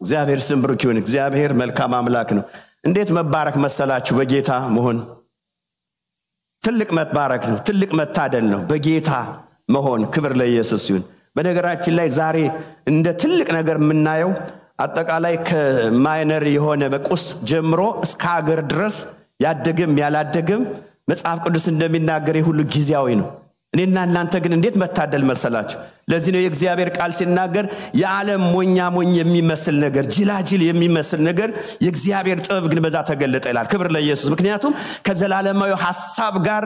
እግዚአብሔር ስም ብሩክ ይሁን። እግዚአብሔር መልካም አምላክ ነው። እንዴት መባረክ መሰላችሁ በጌታ መሆን ትልቅ መባረክ ነው። ትልቅ መታደል ነው በጌታ መሆን። ክብር ለኢየሱስ ይሁን። በነገራችን ላይ ዛሬ እንደ ትልቅ ነገር የምናየው አጠቃላይ ከማይነር የሆነ በቁስ ጀምሮ እስከ ሀገር ድረስ ያደገም ያላደገም መጽሐፍ ቅዱስ እንደሚናገር ሁሉ ጊዜያዊ ነው። እኔና እናንተ ግን እንዴት መታደል መሰላችሁ። ለዚህ ነው የእግዚአብሔር ቃል ሲናገር የዓለም ሞኝ የሚመስል ነገር ጅላጅል የሚመስል ነገር የእግዚአብሔር ጥበብ ግን በዛ ተገለጠ ይላል። ክብር ለኢየሱስ። ምክንያቱም ከዘላለማዊ ሐሳብ ጋር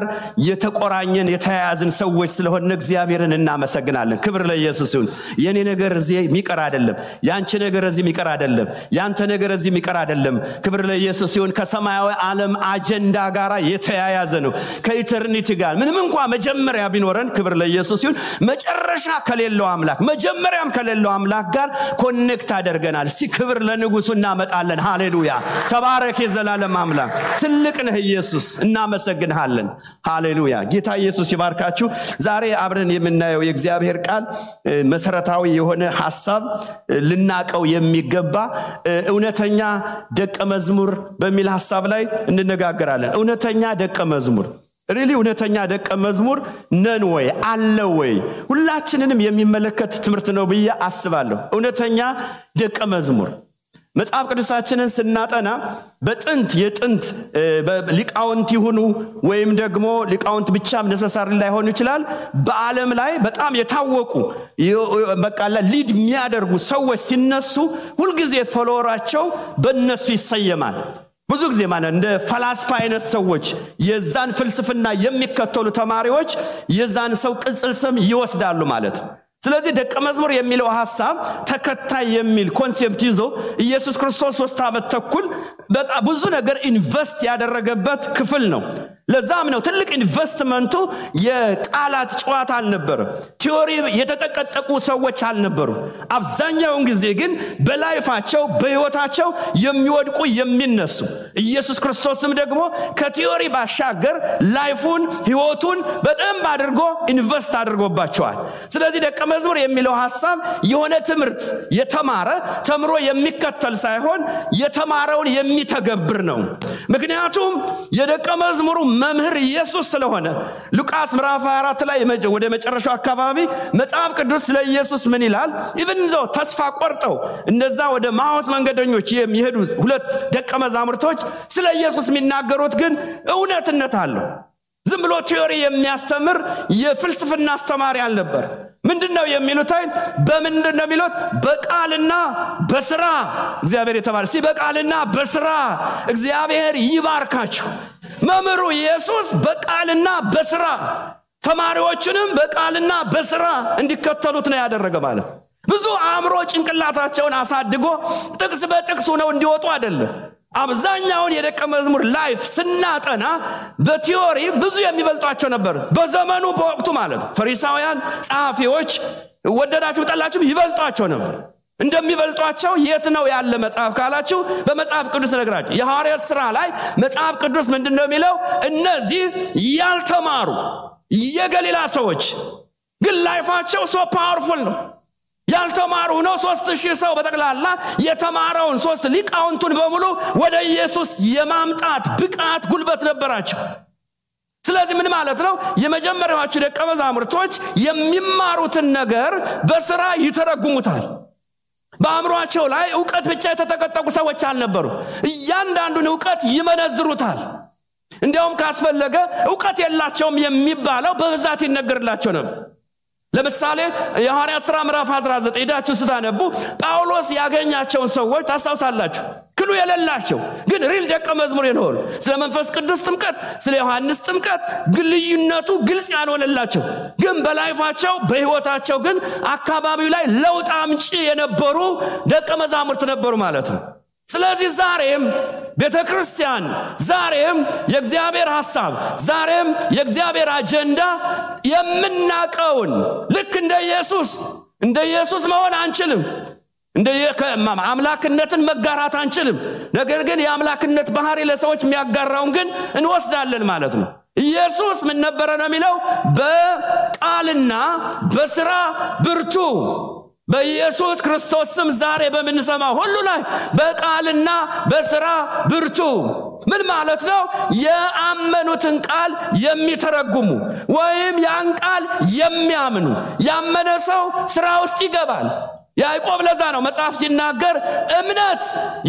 የተቆራኘን የተያያዝን ሰዎች ስለሆነ እግዚአብሔርን እናመሰግናለን። ክብር ለኢየሱስ ይሁን። የኔ ነገር እዚህ የሚቀር አይደለም፣ ያንቺ ነገር እዚህ የሚቀር አይደለም፣ ያንተ ነገር እዚህ የሚቀር አይደለም። ክብር ለኢየሱስ ይሁን። ከሰማያዊ ዓለም አጀንዳ ጋር የተያያዘ ነው ከኢተርኒቲ ጋር። ምንም እንኳን መጀመሪያ ቢኖረን ክብር ለኢየሱስ ይሁን መጨረሻ ከሌለው አምላክ መጀመሪያም ከሌለው አምላክ ጋር ኮኔክት አደርገናል። እስቲ ክብር ለንጉሱ እናመጣለን። ሃሌሉያ ተባረክ የዘላለም አምላክ። ትልቅ ነህ ኢየሱስ፣ እናመሰግንሃለን። ሃሌሉያ ጌታ ኢየሱስ ይባርካችሁ። ዛሬ አብረን የምናየው የእግዚአብሔር ቃል መሰረታዊ የሆነ ሐሳብ ልናቀው የሚገባ እውነተኛ ደቀ መዝሙር በሚል ሐሳብ ላይ እንነጋገራለን። እውነተኛ ደቀ መዝሙር እውነተኛ ደቀ መዝሙር ነን ወይ አለ ወይ? ሁላችንንም የሚመለከት ትምህርት ነው ብዬ አስባለሁ። እውነተኛ ደቀ መዝሙር መጽሐፍ ቅዱሳችንን ስናጠና በጥንት የጥንት ሊቃውንት ይሁኑ ወይም ደግሞ ሊቃውንት ብቻም ነሰሳሪ ላይሆን ይችላል በዓለም ላይ በጣም የታወቁ በቃላ ሊድ የሚያደርጉ ሰዎች ሲነሱ ሁልጊዜ ፎሎወራቸው በእነሱ ይሰየማል። ብዙ ጊዜ ማለት እንደ ፈላስፋ አይነት ሰዎች የዛን ፍልስፍና የሚከተሉ ተማሪዎች የዛን ሰው ቅጽል ስም ይወስዳሉ ማለት ነው። ስለዚህ ደቀ መዝሙር የሚለው ሐሳብ ተከታይ የሚል ኮንሴፕት ይዞ ኢየሱስ ክርስቶስ 3 ዓመት ተኩል በጣም ብዙ ነገር ኢንቨስት ያደረገበት ክፍል ነው። ለዛም ነው ትልቅ ኢንቨስትመንቱ የቃላት ጨዋታ አልነበረ፣ ቲዮሪ የተጠቀጠቁ ሰዎች አልነበሩ። አብዛኛው ጊዜ ግን በላይፋቸው በህይወታቸው የሚወድቁ የሚነሱ ኢየሱስ ክርስቶስም ደግሞ ከቲዮሪ ባሻገር ላይፉን ህይወቱን በደንብ አድርጎ ኢንቨስት አድርጎባቸዋል። ስለዚህ ደቀ መዝሙር የሚለው ሐሳብ የሆነ ትምህርት የተማረ ተምሮ የሚከተል ሳይሆን የተማረውን የሚተገብር ነው። ምክንያቱም የደቀ መዝሙሩ መምህር ኢየሱስ ስለሆነ ሉቃስ ምዕራፍ 24 ላይ ወደ መጨረሻው አካባቢ መጽሐፍ ቅዱስ ለኢየሱስ ምን ይላል? ኢቭንዞ ተስፋ ቆርጠው እነዛ ወደ ማውስ መንገደኞች የሚሄዱ ሁለት ደቀ መዛሙርቶች ስለ ኢየሱስ የሚናገሩት ግን እውነትነት አለው። ዝም ብሎ ቲዮሪ የሚያስተምር የፍልስፍና አስተማሪ አልነበር። ምንድነው የሚሉት? በምንድነው የሚሉት? በቃልና በስራ እግዚአብሔር የተባለ በቃልና በስራ እግዚአብሔር ይባርካችሁ። መምህሩ ኢየሱስ በቃልና በስራ ተማሪዎችንም በቃልና በስራ እንዲከተሉት ነው ያደረገ ማለት። ብዙ አእምሮ ጭንቅላታቸውን አሳድጎ ጥቅስ በጥቅስ ነው እንዲወጡ አይደለም። አብዛኛውን የደቀ መዝሙር ላይፍ ስናጠና በቲዮሪ ብዙ የሚበልጧቸው ነበር በዘመኑ በወቅቱ ማለት። ፈሪሳውያን ጸሐፊዎች ወደዳችሁ ጠላችሁ ይበልጧቸው ነበር። እንደሚበልጧቸው የት ነው ያለ መጽሐፍ ካላችሁ በመጽሐፍ ቅዱስ ነግራችሁ የሐዋርያት ሥራ ላይ መጽሐፍ ቅዱስ ምንድነው የሚለው? እነዚህ ያልተማሩ የገሊላ ሰዎች ግን ላይፋቸው ሶ ፓወርፉል ነው። ያልተማሩ ነው 3000 ሰው በጠቅላላ የተማረውን 3 ሊቃውንቱን በሙሉ ወደ ኢየሱስ የማምጣት ብቃት ጉልበት ነበራቸው። ስለዚህ ምን ማለት ነው? የመጀመሪያዎቹ ደቀ መዛሙርቶች የሚማሩትን ነገር በስራ ይተረጉሙታል። በአእምሮአቸው ላይ ዕውቀት ብቻ የተጠቀጠቁ ሰዎች አልነበሩ። እያንዳንዱን ዕውቀት ይመነዝሩታል። እንዲያውም ካስፈለገ ዕውቀት የላቸውም የሚባለው በብዛት ይነገርላቸው ነበር። ለምሳሌ የሐዋርያት ሥራ ምዕራፍ 19 ሄዳችሁ ስታነቡ ጳውሎስ ያገኛቸውን ሰዎች ታስታውሳላችሁ። ክሉ የሌላቸው ግን ሪል ደቀ መዝሙር የሆኑ ስለ መንፈስ ቅዱስ ጥምቀት ስለ ዮሐንስ ጥምቀት ግልዩነቱ ግልጽ ያልሆነላቸው ግን በላይፋቸው በህይወታቸው ግን አካባቢው ላይ ለውጥ አምጪ የነበሩ ደቀ መዛሙርት ነበሩ ማለት ነው። ስለዚህ ዛሬም ቤተክርስቲያን ዛሬም የእግዚአብሔር ሐሳብ ዛሬም የእግዚአብሔር አጀንዳ የምናቀውን ልክ እንደ ኢየሱስ መሆን አንችልም። እንደ አምላክነትን መጋራት አንችልም። ነገር ግን የአምላክነት ባህሪ ለሰዎች የሚያጋራውን ግን እንወስዳለን ማለት ነው። ኢየሱስ ምን ነበረ ነው የሚለው? በቃልና በስራ ብርቱ በኢየሱስ ክርስቶስ ስም ዛሬ በመንሰማ ሁሉ ላይ በቃልና በሥራ ብርቱ ምን ማለት ነው? ያመኑትን ቃል የሚተረጉሙ ወይም ያን ቃል የሚያምኑ ያመነ ሰው ሥራ ውስጥ ይገባል። ያዕቆብ ለዛ ነው መጽሐፍ ሲናገር እምነት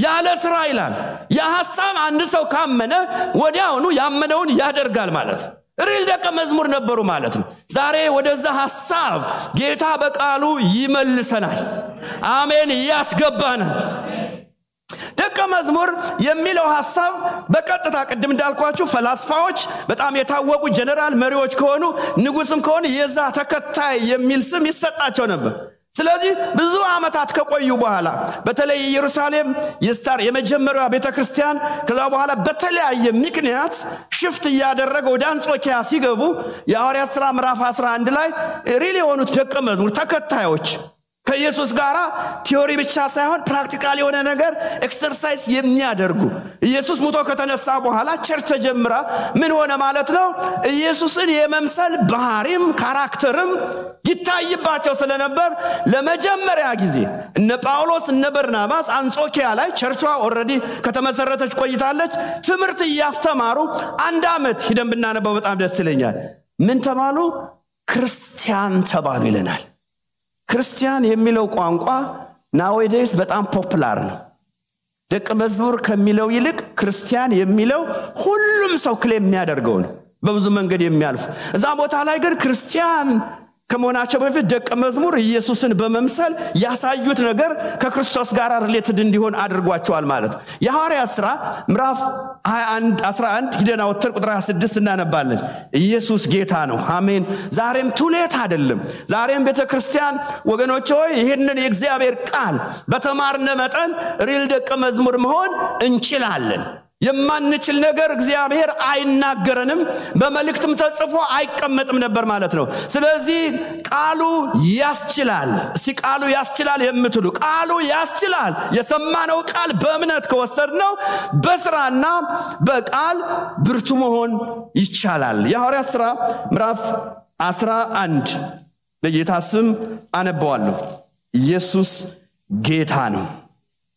ያለ ሥራ ይላል። የሐሳብ አንድ ሰው ካመነ ወዲያውኑ ያመነውን ያደርጋል ማለት ነው። ሪል ደቀ መዝሙር ነበሩ ማለት ነው። ዛሬ ወደዛ ሐሳብ ጌታ በቃሉ ይመልሰናል። አሜን ያስገባናል። ደቀ መዝሙር የሚለው ሐሳብ በቀጥታ ቅድም እንዳልኳችሁ ፈላስፋዎች በጣም የታወቁ ጀነራል መሪዎች ከሆኑ ንጉስም ከሆነ የዛ ተከታይ የሚል ስም ይሰጣቸው ነበር። ስለዚህ ብዙ ዓመታት ከቆዩ በኋላ በተለይ ኢየሩሳሌም የመጀመሪያው ቤተክርስቲያን ከዛ በኋላ በተለያየ ምክንያት ሽፍት ያደረገው ወደ አንጾኪያ ሲገቡ የሐዋርያት ሥራ ምዕራፍ 11 ላይ ሪል የሆኑት ደቀ መዝሙር ተከታዮች ከኢየሱስ ጋር ቲዮሪ ብቻ ሳይሆን ፕራክቲካል የሆነ ነገር ኤክሰርሳይዝ የሚያደርጉ ኢየሱስ ሞቶ ከተነሳ በኋላ ቸርች ተጀምራ ምን ሆነ ማለት ነው? ኢየሱስን የመምሰል ባህሪም ካራክተርም ይታይባቸው ስለነበር ለመጀመሪያ ጊዜ እነ ጳውሎስ እነ በርናባስ አንጾኪያ ላይ ቸርቿ ኦሬዲ ከተመሰረተች ቆይታለች። ትምህርት ያስተማሩ አንድ አመት ሄደን ብናነበው በጣም ደስ ይለኛል። ምን ተባሉ? ክርስቲያን ተባሉ ይለናል። ክርስቲያን የሚለው ቋንቋ ናዌዴስ በጣም ፖፑላር ነው። ደቀ መዝሙር ከሚለው ይልቅ ክርስቲያን የሚለው ሁሉም ሰው ክሌም የሚያደርገው ነው፣ በብዙ መንገድ የሚያልፍ። እዛ ቦታ ላይ ግን ክርስቲያን ከመሆናቸው በፊት ደቀ መዝሙር ኢየሱስን በመምሰል ያሳዩት ነገር ከክርስቶስ ጋር ሪሌትድ እንዲሆን አድርጓቸዋል ማለት ነው። የሐዋርያት ሥራ ምዕራፍ 21 11 ሂደና ወተን ቁጥር 26 እናነባለን። ኢየሱስ ጌታ ነው። አሜን። ዛሬም ቱሌት አይደለም። ዛሬም ቤተክርስቲያን ወገኖች ሆይ ይሄንን የእግዚአብሔር ቃል በተማርነ መጠን ሪል ደቀ መዝሙር መሆን እንችላለን። የማንችል ነገር እግዚአብሔር አይናገረንም፣ በመልእክትም ተጽፎ አይቀመጥም ነበር ማለት ነው። ስለዚህ ቃሉ ያስችላል። ቃሉ ያስችላል የምትሉ ቃሉ ያስችላል። የሰማነው ቃል በእምነት ከወሰድነው በሥራና በቃል ብርቱ መሆን ይቻላል። የሐዋርያት ሥራ ምዕራፍ 11 በጌታ ስም አነባዋለሁ። ኢየሱስ ጌታ ነው።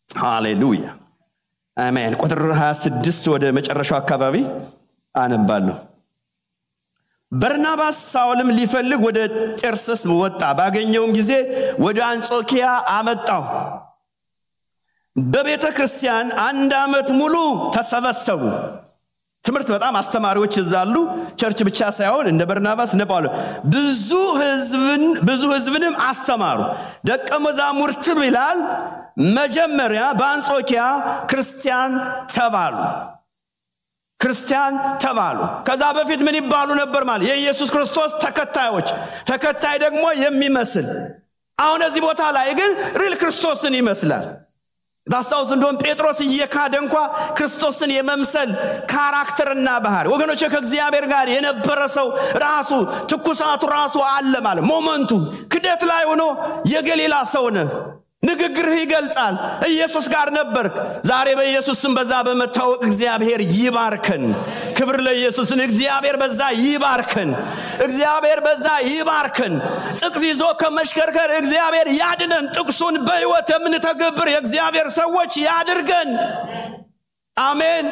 ሃሌሉያ አሜን። ቁጥር 26 ወደ መጨረሻው አካባቢ አነባለሁ። በርናባስ ሳውልም ሊፈልግ ወደ ጤርሰስ ወጣ። ባገኘውም ጊዜ ወደ አንጾኪያ አመጣው። በቤተ ክርስቲያን አንድ አመት ሙሉ ተሰበሰቡ። ትምህርት በጣም አስተማሪዎች ይዛሉ። ቸርች ብቻ ሳይሆን እንደ በርናባስ እንደ ጳውሎስ ብዙ ህዝብንም አስተማሩ። ደቀ መዛሙርትም ይላል መጀመሪያ በአንጾኪያ ክርስቲያን ተባሉ። ከዛ በፊት ምን ይባሉ ነበር ማለት? የኢየሱስ ክርስቶስ ተከታይ ደግሞ የሚመስል። አሁን እዚህ ቦታ ላይ ግን ሪል ክርስቶስን ይመስላል። ዳሳውስ እንደውም ጴጥሮስ እየካደ እንኳን ክርስቶስን የመምሰል ካራክተርና ባህሪ ወገኖች ከእግዚአብሔር ጋር የነበረ ሰው ራሱ ትኩሳቱ ራሱ አለ ማለት ሞመንቱ ክደት ላይ ሆኖ የገሊላ ሰው ነው። ንግግርህ ይገልጻል። ኢየሱስ ጋር ነበርክ። ዛሬ በኢየሱስ ስም በዛ በመታወቅ እግዚአብሔር ይባርከን። ክብር ለኢየሱስ። እግዚአብሔር በዛ ይባርከን። ጥቅስ ይዞ ከመሽከርከር እግዚአብሔር ያድነን። ጥቅሱን በሕይወት የምንተገብር የእግዚአብሔር ሰዎች ያድርገን። አሜን።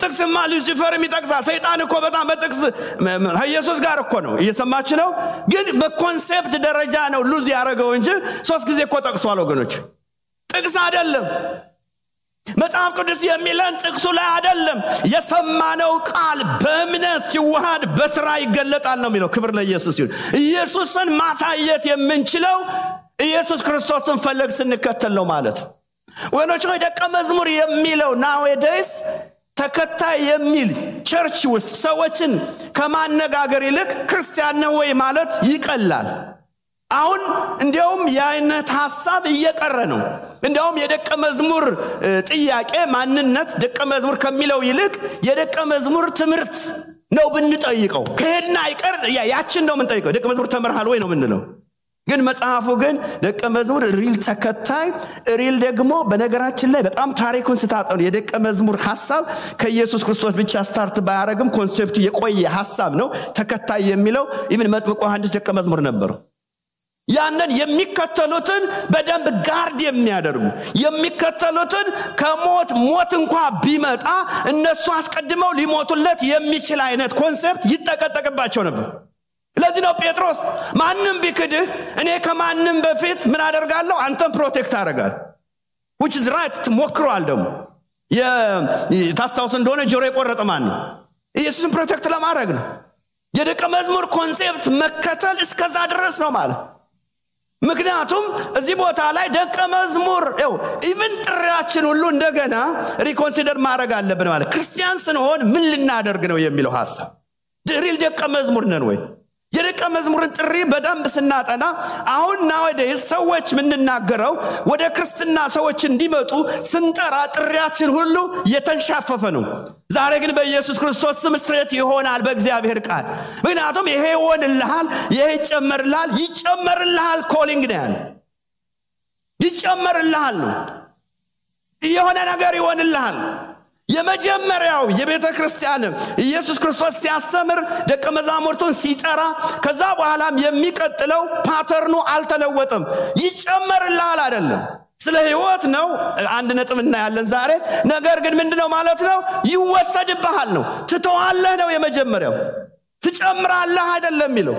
ጥቅስማ ሉሲፈርም ይጠቅሳል። ሰይጣን እኮ በጣም በጥቅስ ኢየሱስ ጋር እኮ ነው እየሰማች ነው። ግን በኮንሴፕት ደረጃ ነው ሉዝ ያደረገው እንጂ 3 ጊዜ እኮ ጠቅሷል ወገኖች። ጥቅስ አይደለም መጽሐፍ ቅዱስ የሚለን ጥቅሱ ላይ አይደለም። የሰማነው ቃል በእምነት ሲዋሃድ በሥራ ይገለጣል ነው የሚለው። ክብር ለኢየሱስ ይሁን። ኢየሱስን ማሳየት የምንችለው ኢየሱስ ክርስቶስን ፈለግ ስንከተል ነው ማለት ወገኖች። ደቀ መዝሙር የሚለው ናዌዴስ ተከታይ የሚል ቸርች ውስጥ ሰዎችን ከማነጋገር ይልቅ ክርስቲያን ነው ወይ ማለት ይቀላል። አሁን እንደውም የአይነት ሐሳብ እየቀረ ነው። እንደውም የደቀ መዝሙር ጥያቄ ማንነት ደቀ መዝሙር ከሚለው ይልቅ የደቀ መዝሙር ትምህርት ነው ብንጠይቀው። ከሄድና አይቀር ያችን ነው የምንጠይቀው። ደቀ መዝሙር ተመርሃል ወይ ነው የምንለው። ግን መጽሐፉ ግን ደቀ መዝሙር ሪል ተከታይ ሪል ደግሞ በነገራችን ላይ በጣም ታሪኩን ስታጠኑ የደቀ መዝሙር ሐሳብ ከኢየሱስ ክርስቶስ ብቻ ስታርት ባያረግም ኮንሴፕቱ የቆየ ሐሳብ ነው። ተከታይ የሚለው ኢቭን መጥምቁ ዮሐንስ ደቀ መዝሙር ነበር። ያንን የሚከተሉትን በደንብ ጋርድ የሚያደርጉ የሚከተሉትን ሞት እንኳን ቢመጣ እነሱ አስቀድመው ሊሞቱለት የሚችል አይነት ኮንሰፕት ይጠቀጠቅባቸው ነበር። ለዚህ ነው ጴጥሮስ ማንንም ቢክድህ እኔ ከማንንም በፊት ምን አደርጋለሁ አንተን ፕሮቴክት አደርጋለሁ which is right ተሞክሯል። ደግሞ ታስታውስ እንደሆነ ጆሮ የቆረጠ ማን ነው? ኢየሱስን ፕሮቴክት ለማድረግ ነው። የደቀ መዝሙር ኮንሰፕት መከተል እስከዛ ድረስ ነው ማለት። ምክንያቱም እዚህ ቦታ ላይ ደቀ መዝሙር ኢቭን ጥሪያችን ሁሉ እንደገና ሪኮንሲደር ማድረግ አለብን ማለት። ክርስቲያን ስንሆን ምን ልናደርግ ነው የሚለው ሐሳብ ድሪል ደቀ መዝሙር ነን ወይ? የደቀ መዝሙርን ጥሪ በደንብ ስናጠና አሁን nowadays ሰዎች ምንናገረው ወደ ክርስትና ሰዎች እንዲመጡ ስንጠራ ጥሪያችን ሁሉ የተንሻፈፈ ነው። ዛሬ ግን በኢየሱስ ክርስቶስ ስም ስትሬት ይሆናል በእግዚአብሔር ቃል። ምክንያቱም ይሄ ይሆንልሃል፣ ይሄ ይጨመርልሃል ኮሊንግ ነው። ይጨመርልሃል ነው የሆነ ነገር ይሆንልሃል። የመጀመሪያው የቤተ ክርስቲያን ኢየሱስ ክርስቶስ ሲያስተምር ደቀ መዛሙርቱን ሲጠራ ከዛ በኋላም የሚቀጥለው ፓተርኑ አልተለወጠም። ይጨመርልሃል አይደለም፣ ስለ ህይወት ነው አንድ ነጥብ እናያለን ዛሬ። ነገር ግን ምንድነው ማለት ነው? ይወሰድብሃል ነው። ትተዋለህ ነው የመጀመሪያው። ትጨምራለህ አይደለም የሚለው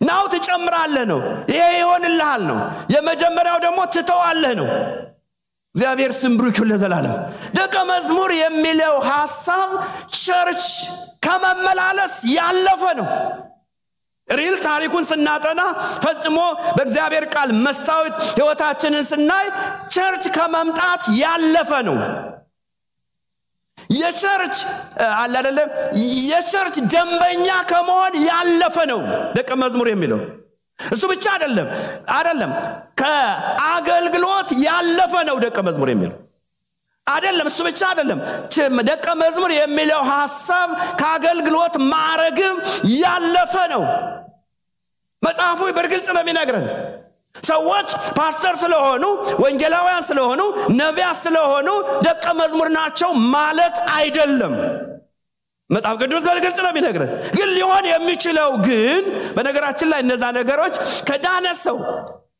ናው ትጨምራለህ ነው። ይሄ ይሆንልሃል ነው። የመጀመሪያው ደግሞ ትተዋለህ ነው። እግዚአብሔር ስም ብሩክ ይሁን ለዘላለም። ደቀ መዝሙር የሚለው ሐሳብ ቸርች ከመመላለስ ያለፈ ነው። ሪል ታሪኩን ስናጠና ፈጽሞ በእግዚአብሔር ቃል መስታወት ህይወታችንን ስናይ ቸርች ከመምጣት ያለፈ ነው። የቸርች የቸርች ደንበኛ ከመሆን ያለፈ ነው ደቀ መዝሙር የሚለው። እሱ ብቻ አይደለም ከአገልግሎት ያለፈ ነው ደቀ መዝሙር የሚለው አይደለም። እሱ ብቻ አይደለም ደቀ መዝሙር የሚለው ሐሳብ ከአገልግሎት ማዕረግም ያለፈ ነው። መጽሐፉ በግልጽ ነው የሚነግረን። ሰዎች ፓስተር ስለሆኑ ወንጌላውያን ስለሆኑ ነቢያት ስለሆኑ ደቀ መዝሙር ናቸው ማለት አይደለም። መጽሐፍ ቅዱስ በግልጽ ነው የሚነግረን። ግን ሊሆን የሚችለው ግን በነገራችን ላይ እነዛ ነገሮች ከዳነ ሰው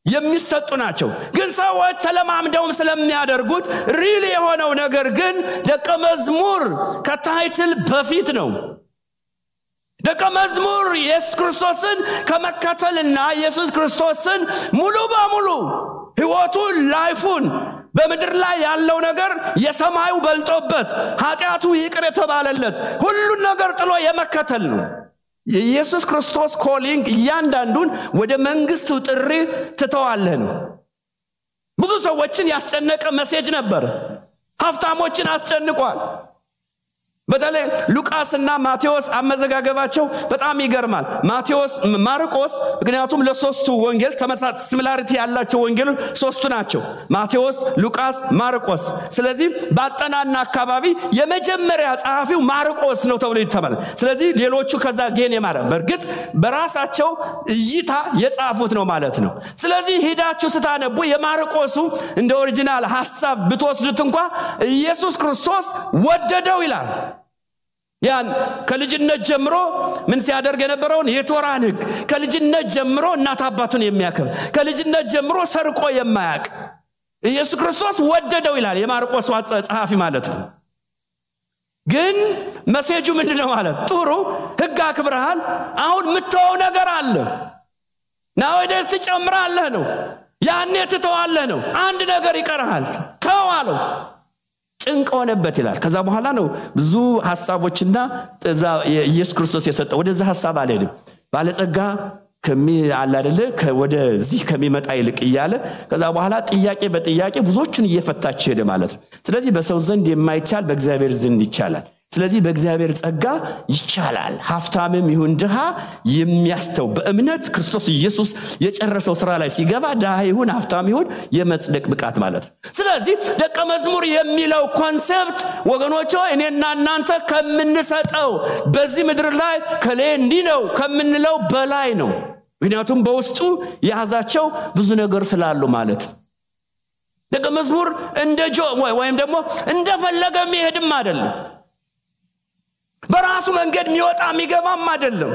የሚሰጡ ናቸው። ግን ሰዎች ተለማምደውም ስለሚያደርጉት ሪሊ የሆነው ነገር ግን ደቀ መዝሙር ከታይትል በፊት ነው። ደቀ መዝሙር ኢየሱስ ክርስቶስን ከመከተልና ኢየሱስ ክርስቶስን ሙሉ በሙሉ ህይወቱን ላይፉን በመድር ላይ ያለው ነገር የሰማዩ በልጦበት ኃጢያቱ ይቅር የተባለለት ሁሉ ነገር ጥሎ የመከተል ነው። የኢየሱስ ክርስቶስ ኮሊንግ እያንዳንዱን ወደ መንግስቱ ጥሪ ትተዋለህ ነው። ብዙ ሰዎችን ያስጨነቀ ሜሴጅ ነበር። ሀብታሞችን አስጨንቋል። በተለይ ሉቃስና ማቴዎስ አመዘጋገባቸው በጣም ይገርማል። ማርቆስ ምክንያቱም ለሶስቱ ወንጌል ተመሳሳይ ሲሚላሪቲ ያላቸው ወንጌሎች ሶስቱ ናቸው፣ ማቴዎስ፣ ሉቃስ፣ ማርቆስ። ስለዚህ ባጠናና አካባቢ የመጀመሪያ ጸሐፊው ማርቆስ ነው ተብሎ ይተማል። ስለዚህ ሌሎቹ ከዛ ጌን የማረ በርግጥ በራሳቸው እይታ የጻፉት ነው ማለት ነው። ስለዚህ ሄዳችሁ ስታነቡ የማርቆሱ እንደ ኦሪጂናል ሐሳብ ብትወስዱት እንኳን ኢየሱስ ክርስቶስ ወደደው ይላል። ያን ከልጅነት ጀምሮ ምን ሲያደርግ የነበረውን የቶራን ሕግ ከልጅነት ጀምሮ እናት አባቱን የሚያከብር ከልጅነት ጀምሮ ሰርቆ የማያውቅ ኢየሱስ ክርስቶስ ወደደው ይላል የማርቆስ ጸሐፊ ማለት ነው። ግን ሜሴጁ ምንድነው ማለት? ጥሩ ሕግ አክብረሃል፣ አሁን ምትተው ነገር አለ ነው ወደስ ትጨምራለህ ነው። ያኔ ትተዋለህ ነው። አንድ ነገር ይቀርሃል ተዋለው። ጭንቅ ሆነበት ይላል። ከዛ በኋላ ነው ብዙ ሐሳቦችና ኢየሱስ ክርስቶስ የሰጠው ወደዛ ሐሳብ አልሄድም። ባለጸጋ ከሚያል አይደለ ወደዚህ ከሚመጣ ይልቅ ይያለ ከዛ በኋላ ጥያቄ በጥያቄ ብዙዎችን እየፈታች ሄደ ማለት ነው። ስለዚህ በሰው ዘንድ የማይቻል በእግዚአብሔር ዘንድ ይቻላል። ስለዚህ በእግዚአብሔር ጸጋ ይቻላል። ሀብታምም ይሁን ድሃ የሚያስተው በእምነት ክርስቶስ ኢየሱስ የጨረሰው ስራ ላይ ሲገባ ድሃ ይሁን ሀብታም ይሁን የመጽደቅ ብቃት ማለት ነው። ስለዚህ ደቀ መዝሙር የሚለው ኮንሰፕት ወገኖች እኔና እናንተ ከምንሰጠው በዚህ ምድር ላይ ከሌንዲ ነው ከምንለው በላይ ነው። ምክንያቱም በውስጡ ያዛቸው ብዙ ነገር ስላሉ ማለት ነው። ደቀ መዝሙር እንደ ወይም ደግሞ እንደፈለገ የሚሄድም አይደለም። በራሱ መንገድ የሚወጣ የሚገባም አይደለም።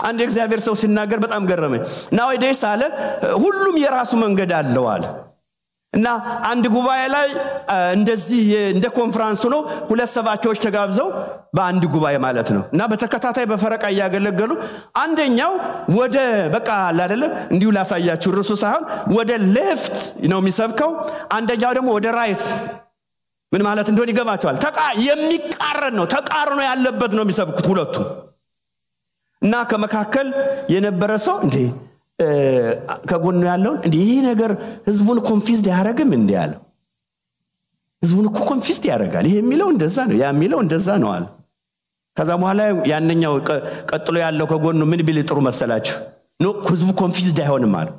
አንድ እግዚአብሔር ሰው ሲናገር በጣም ገረመኝ nowadays አለ ሁሉም የራሱ መንገድ አለው አለ እና አንድ ጉባኤ ላይ እንደዚህ እንደ ኮንፈረንስ ነው ሁለት ሰባኪዎች ተጋብዘው በአንድ ጉባኤ ማለት ነው እና በተከታታይ በፈረቃ ያገለገሉ አንደኛው ወደ በቃ አይደለ እንዲሁ ላሳያችሁ ርሱ ሳይሆን ወደ ሌፍት ነው የሚሰብከው አንደኛው ደግሞ ወደ ራይት ምን ማለት እንደሆነ ይገባቸዋል የሚቃረን ነው ተቃርኖ ያለበት ነው የሚሰብኩት ሁለቱ እና ከመካከል የነበረ ሰው እንዴ ከጎኑ ያለው እንዴ ይሄ ነገር ህዝቡን ኮንፊውዝድ ያደርግም እንዴ ያለው ህዝቡን እኮ ኮንፊውዝድ ያደርጋል ይሄ የሚለው እንደዛ ነው ያ የሚለው እንደዛ ነው አለ ከዛ በኋላ ያንኛው ቀጥሎ ያለው ከጎኑ ምን ቢል ጥሩ መሰላችሁ ነው ህዝቡ ኮንፊውዝድ አይሆንም አለ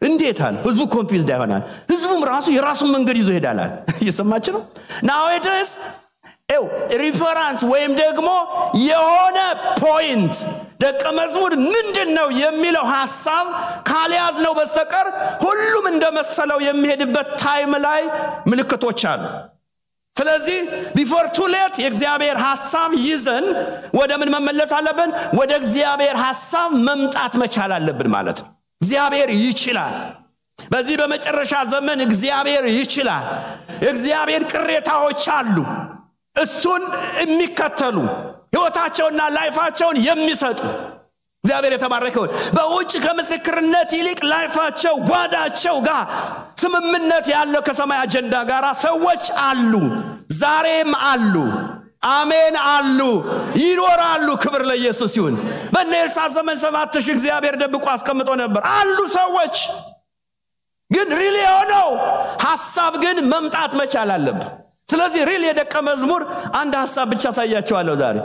እንዴት አለ ህዝቡ ኮንፊውዝድ አይሆናል ህዝቡም ራሱ የራሱን መንገድ ይዞ ይሄዳል እየሰማችሁ ነው nowadays ሪፈረንስ ወይም ደግሞ የሆነ ፖይንት ደቀ መዝሙር ምንድነው የሚለው ሐሳብ ካልያዝ ነው በስተቀር ሁሉም እንደመሰለው የሚሄድበት ታይም ላይ ምልክቶች አሉ ስለዚህ before too late የእግዚአብሔር ሐሳብ ይዘን ወደ ምን መመለስ አለብን ወደ እግዚአብሔር ሐሳብ መምጣት መቻል አለብን ማለት ነው እግዚአብሔር ይችላል በዚህ በመጨረሻ ዘመን እግዚአብሔር ይችላል እግዚአብሔር ቅሬታዎች አሉ እሱን የሚከተሉ ህይወታቸውና ላይፋቸውን የሚሰጡ እግዚአብሔር የተባረከው በውጭ ከምስክርነት ይልቅ ላይፋቸው ጓዳቸው ጋር ስምምነት ያለው ከሰማይ አጀንዳ ጋር ሰዎች አሉ ዛሬም አሉ አሜን አሉ ይኖራሉ ክብር ለኢየሱስ ይሁን በኔልሳ ዘመን 7000 እግዚአብሔር ደብቆ አስቀምጦ ነበር አሉ ሰዎች ግን ሪሊ ሆነው ሐሳብ ግን መምጣት መቻል አለበት ስለዚህ ሪሊ የደቀ መዝሙር አንድ ሐሳብ ብቻ ሳያቸዋለሁ ዛሬ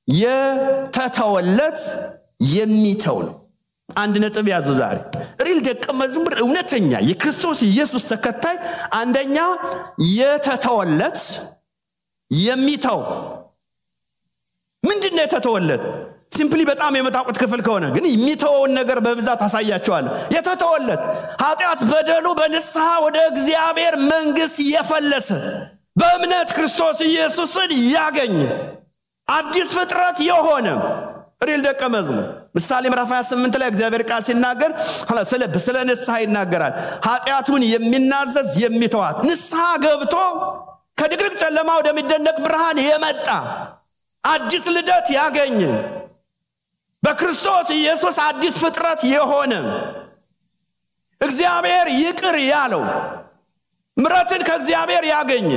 የተተወለት የሚተው ነው አንድ ነጥብ ያዙ ዛሬ ሪል ደቀ መዝሙር እውነተኛ የክርስቶስ ኢየሱስ ተከታይ አንደኛ የተተወለት የሚተው ምንድነው የተተወለት ሲምፕሊ በጣም የመታወቁት ክፍል ከሆነ ግን የሚተወውን ነገር በብዛት አሳያቸዋለሁ የተተወለት ኃጢአት በደሉ በንስሐ ወደ እግዚአብሔር መንግስት የፈለሰ በእምነት ክርስቶስ ኢየሱስን ያገኘ አዲስ ፍጥረት የሆነ ሪል ደቀ መዝሙር ምሳሌ ምዕራፍ 28 ላይ እግዚአብሔር ቃል ሲናገር ስለ ንስሐ ይናገራል ኃጢአቱን የሚናዘዝ የሚተዋት ንስሐ ገብቶ ከድቅድቅ ጨለማ ወደሚደነቅ ብርሃን የመጣ አዲስ ልደት ያገኘ በክርስቶስ ኢየሱስ አዲስ ፍጥረት የሆነ እግዚአብሔር ይቅር ያለው ምሕረትን ከእግዚአብሔር ያገኘ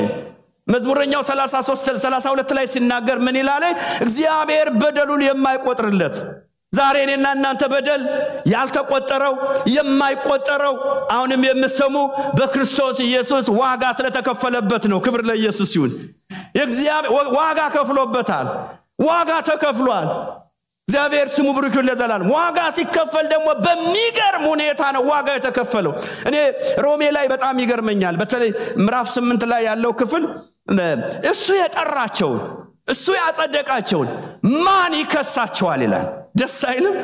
መዝሙረኛው 32 ላይ ሲናገር ምን ይላል እግዚአብሔር በደሉን የማይቆጥርለት ዛሬ እኔና እናንተ በደል ያልተቆጠረው የማይቆጠረው አሁንም የምሰሙ በክርስቶስ ኢየሱስ ዋጋ ስለተከፈለበት ነው ክብር ለኢየሱስ ይሁን እግዚአብሔር ዋጋ ከፍሎበታል ዋጋ ተከፍሏል እግዚአብሔር ስሙ ብሩክ ይሁን ለዘላለም ዋጋ ሲከፈል ደግሞ በሚገርም ሁኔታ ነው ዋጋ የተከፈለው እኔ ሮሜ ላይ በጣም ይገርመኛል በተለይ ምዕራፍ 8 ላይ ያለው ክፍል እሱ የጠራቸው እሱ ያጸደቃቸው ማን ይከሳቸዋል ይላል ደስ አይልም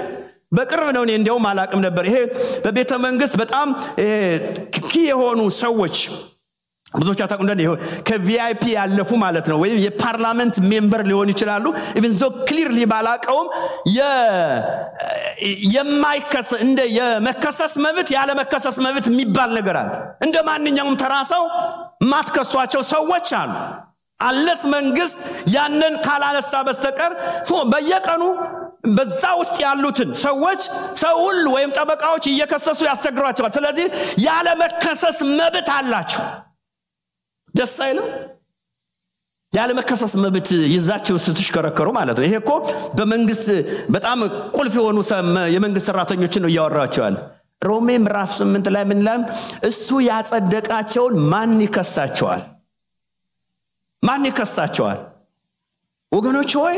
በቅርብ ነው እኔ እንደውም አላቅም ነበር ይሄ በቤተ መንግስት በጣም የሆኑ ሰዎች ብዙዎች አታውቁ እንደው ከቪአይፒ ያለፉ ማለት ነው ወይም የፓርላመንት ሜምበር ሊሆን ይችላሉ even so clearly ባላቀውም የማይከሰስ እንደ የመከሰስ መብት ያለ መከሰስ መብት የሚባል ነገር አለ እንደ ማንኛውም ተራሰው ማትከሷቸው ሰዎች አሉ አለስ መንግስት ያንን ካላነሳ በስተቀር በየቀኑ በዛ ውስጥ ያሉትን ሰዎች ሰውል ወይም ጠበቃዎች እየከሰሱ ያስቸግሯቸዋል ስለዚህ ያለ መከሰስ መብት አላቸው ደስ አይልም ያለ መከሰስ መብት ይዛቸው ስትሽከረከሩ ማለት ነው ይሄ እኮ በመንግስት በጣም ቁልፍ የሆኑ የመንግስት ሰራተኞችን ነው ያወራቸዋል ሮሜ ምዕራፍ 8 ላይ ምን ይላል እሱ ያጸደቃቸው ማን ይከሳቸዋል ወገኖች ሆይ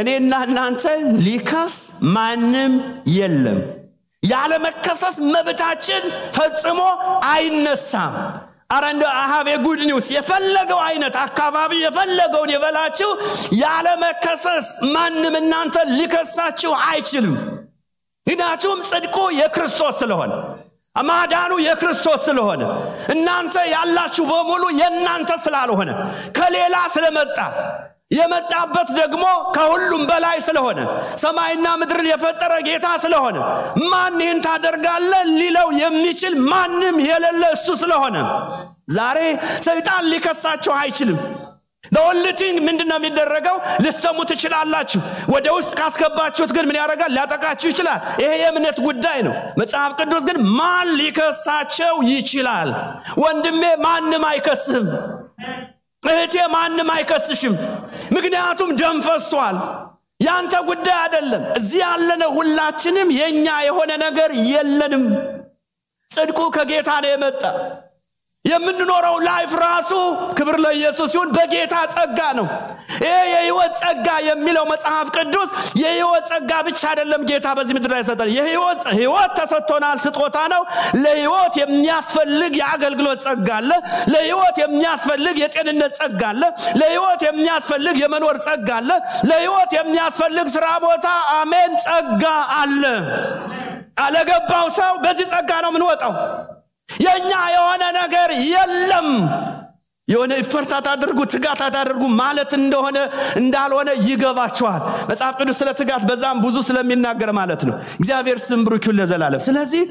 እኔና እናንተ ሊከስ ማንም የለም ያለ መከሰስ መብታችን ፈጽሞ አይነሳም አረንዶ አሃብ የጉድ ኒውስ የፈለገው አይነት አካባቢ የፈለገውን የበላችሁ ያለ መከሰስ ማንም እናንተ ሊከሳችሁ አይችልም ምክንያቱም ጽድቁ የክርስቶስ ስለሆነ አማዳኑ የክርስቶስ ስለሆነ እናንተ ያላችሁ በሙሉ የናንተ ስላልሆነ ከሌላ ስለመጣ የመጣበት ደግሞ ከሁሉም በላይ ስለሆነ ሰማይና ምድርን የፈጠረ ጌታ ስለሆነ ማን ይህን ታደርጋለህ ሊለው የሚችል ማንም የሌለ እሱ ስለሆነ ዛሬ ሰይጣን ሊከሳቸው አይችልም። the only thing ምንድነው የሚደረገው? ልትሰሙ ትችላላችሁ። ወደ ውስጥ ካስገባችሁት ግን ምን ያደርጋል? ሊያጠቃችሁ ይችላል። ይሄ የእምነት ጉዳይ ነው። መጽሐፍ ቅዱስ ግን ማን ሊከሳቸው ይችላል? ወንድሜ ማንም አይከስህም። እህቴ ማንም አይከስሽም። ምክንያቱም ደም ፈሷል። ያንተ ጉዳይ አይደለም። እዚህ ያለነው ሁላችንም የኛ የሆነ ነገር የለንም። ጽድቁ ከጌታ ነው የመጣ። የምንኖረው ላይፍ ራሱ ክብር ለኢየሱስ ይሁን በጌታ ጸጋ ነው። ይሄ የሕይወት ጸጋ የሚለው መጽሐፍ ቅዱስ የሕይወት ጸጋ ብቻ አይደለም ጌታ በዚህ ምድር ላይ ሰጠን። የሕይወት ተሰጥቶናል፣ ስጦታ ነው። ለሕይወት የሚያስፈልግ የአገልግሎት ጸጋ አለ። ለሕይወት የሚያስፈልግ የጤንነት ጸጋ አለ። ለሕይወት የሚያስፈልግ የመኖር ጸጋ አለ። ለሕይወት የሚያስፈልግ ስራ ቦታ አሜን ጸጋ አለ። አለገባው ሰው በዚህ ጸጋ ነው የምንወጣው። የኛ የሆነ ነገር የለም። የሆነ ፍርታት አድርጉ ትጋት አድርጉ ማለት እንደሆነ እንዳልሆነ ይገባቸዋል። መጽሐፍ ቅዱስ ስለ ትጋት በዛም ብዙ ስለሚናገር ማለት ነው። እግዚአብሔር ስም ብሩክ ይሁን ለዘላለም። ስለዚህ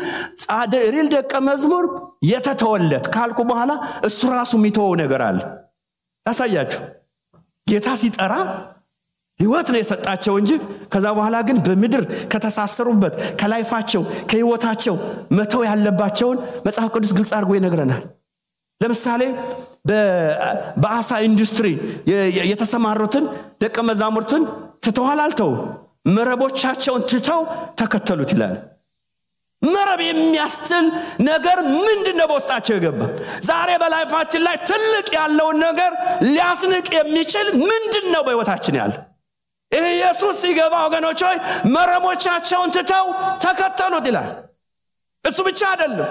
ሪል ደቀ መዝሙር የተተወለት ካልኩ በኋላ እሱ ራሱ የሚተወው ነገር አለ። ታሳያችሁ። ጌታ ሲጠራ ሕይወት ነው የሰጣቸው እንጂ ከዛ በኋላ ግን በምድር ከተሳሰሩበት ከላይፋቸው ከሕይወታቸው መተው ያለባቸውን መጽሐፍ ቅዱስ ግልጽ አድርጎ ይነግረናል። ለምሳሌ በአሳ ኢንዱስትሪ የተሰማሩትን ደቀ መዛሙርትን ትተዋል አልተው? መረቦቻቸውን ትተው ተከተሉት ይላል። መረብ የሚያስጥል ነገር ምንድነው በውስጣቸው የገባ? ዛሬ በላይፋችን ላይ ትልቅ ያለውን ነገር ሊያስንቅ የሚችል ምንድነው በሕይወታችን ያለ? ኢየሱስ ሲገባ ወገኖች ሆይ መረቦቻቸውን ትተው ተከተሉት ይላል። እሱ ብቻ አይደለም።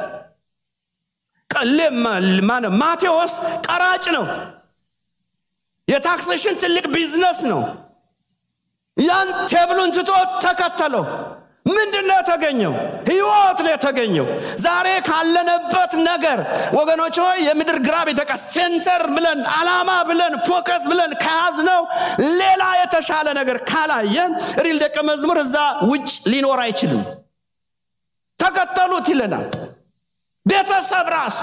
ማቴዎስ ቀራጭ ነው። የታክሴሽን ትልቅ ቢዝነስ ነው። ያን ቴብሉን ትቶ ተከተለው። ምንድነው የተገኘው? ሕይወት ነው የተገኘው። ዛሬ ካለንበት ነገር ወገኖች ሆይ የምድር ግራቪቲ ሴንተር ብለን አላማ ብለን ፎከስ ብለን ከያዝነው ሌላ የተሻለ ነገር ካላየን ሪል ደቀ መዝሙር እዛ ውጭ ሊኖር አይችልም። ተከተሉት ይለናል። ቤተሰብ ራሱ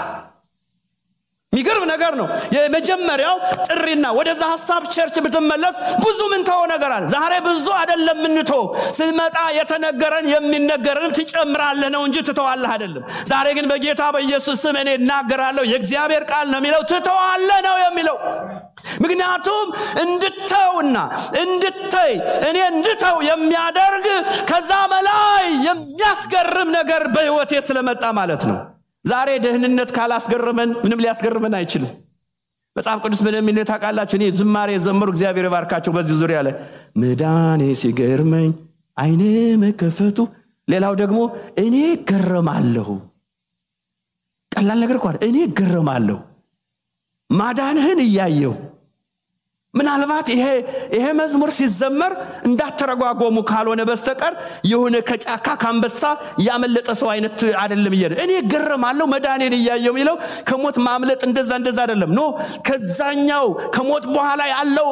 የሚገርም ነገር ነው። የመጀመሪያው ጥሪና ወደዛ ሐሳብ ቸርች ብትመለስ ብዙ ምን ተው ነገር አለ። ዛሬ ብዙ አይደለም ምን ተው ስመጣ የተነገረን የሚነገረን ትጨምራለህ ነው እንጂ ትተዋለህ አይደለም። ዛሬ ግን በጌታ በኢየሱስ ስም እኔ እናገራለሁ የእግዚአብሔር ቃል ነው የሚለው ትተዋለህ ነው የሚለው። ምክንያቱም እንድተውና እንድተይ እኔ እንድተው የሚያደርግ ከዛ በላይ የሚያስገርም ነገር በሕይወቴ ስለመጣ ማለት ነው። ዛሬ ደህንነት ካላስገረመን ምንም ሊያስገርመን አይችልም። መጽሐፍ ቅዱስ ምንም ይል ታውቃላችሁ። እኔ ዝማሬ ዘምሩ እግዚአብሔር ባርካቸው በዚህ ዙሪያ ላይ መዳኔ ሲገርመኝ አይኔ መከፈቱ፣ ሌላው ደግሞ እኔ ገረማለሁ። ቀላል ነገር እንኳን እኔ ገረማለሁ ማዳንህን እያየው። ምናልባት ይሄ መዝሙር ሲዘመር እንዳተረጓጎሙ ካልሆነ በስተቀር የሆነ ከጫካ ካንበሳ ያመለጠ ሰው አይነት አይደለም። እኔ ገረማለሁ መዳኔን እያየው የሚለው ከሞት ማምለጥ እንደዛ አይደለም። ኖ ከዛኛው ከሞት በኋላ ያለው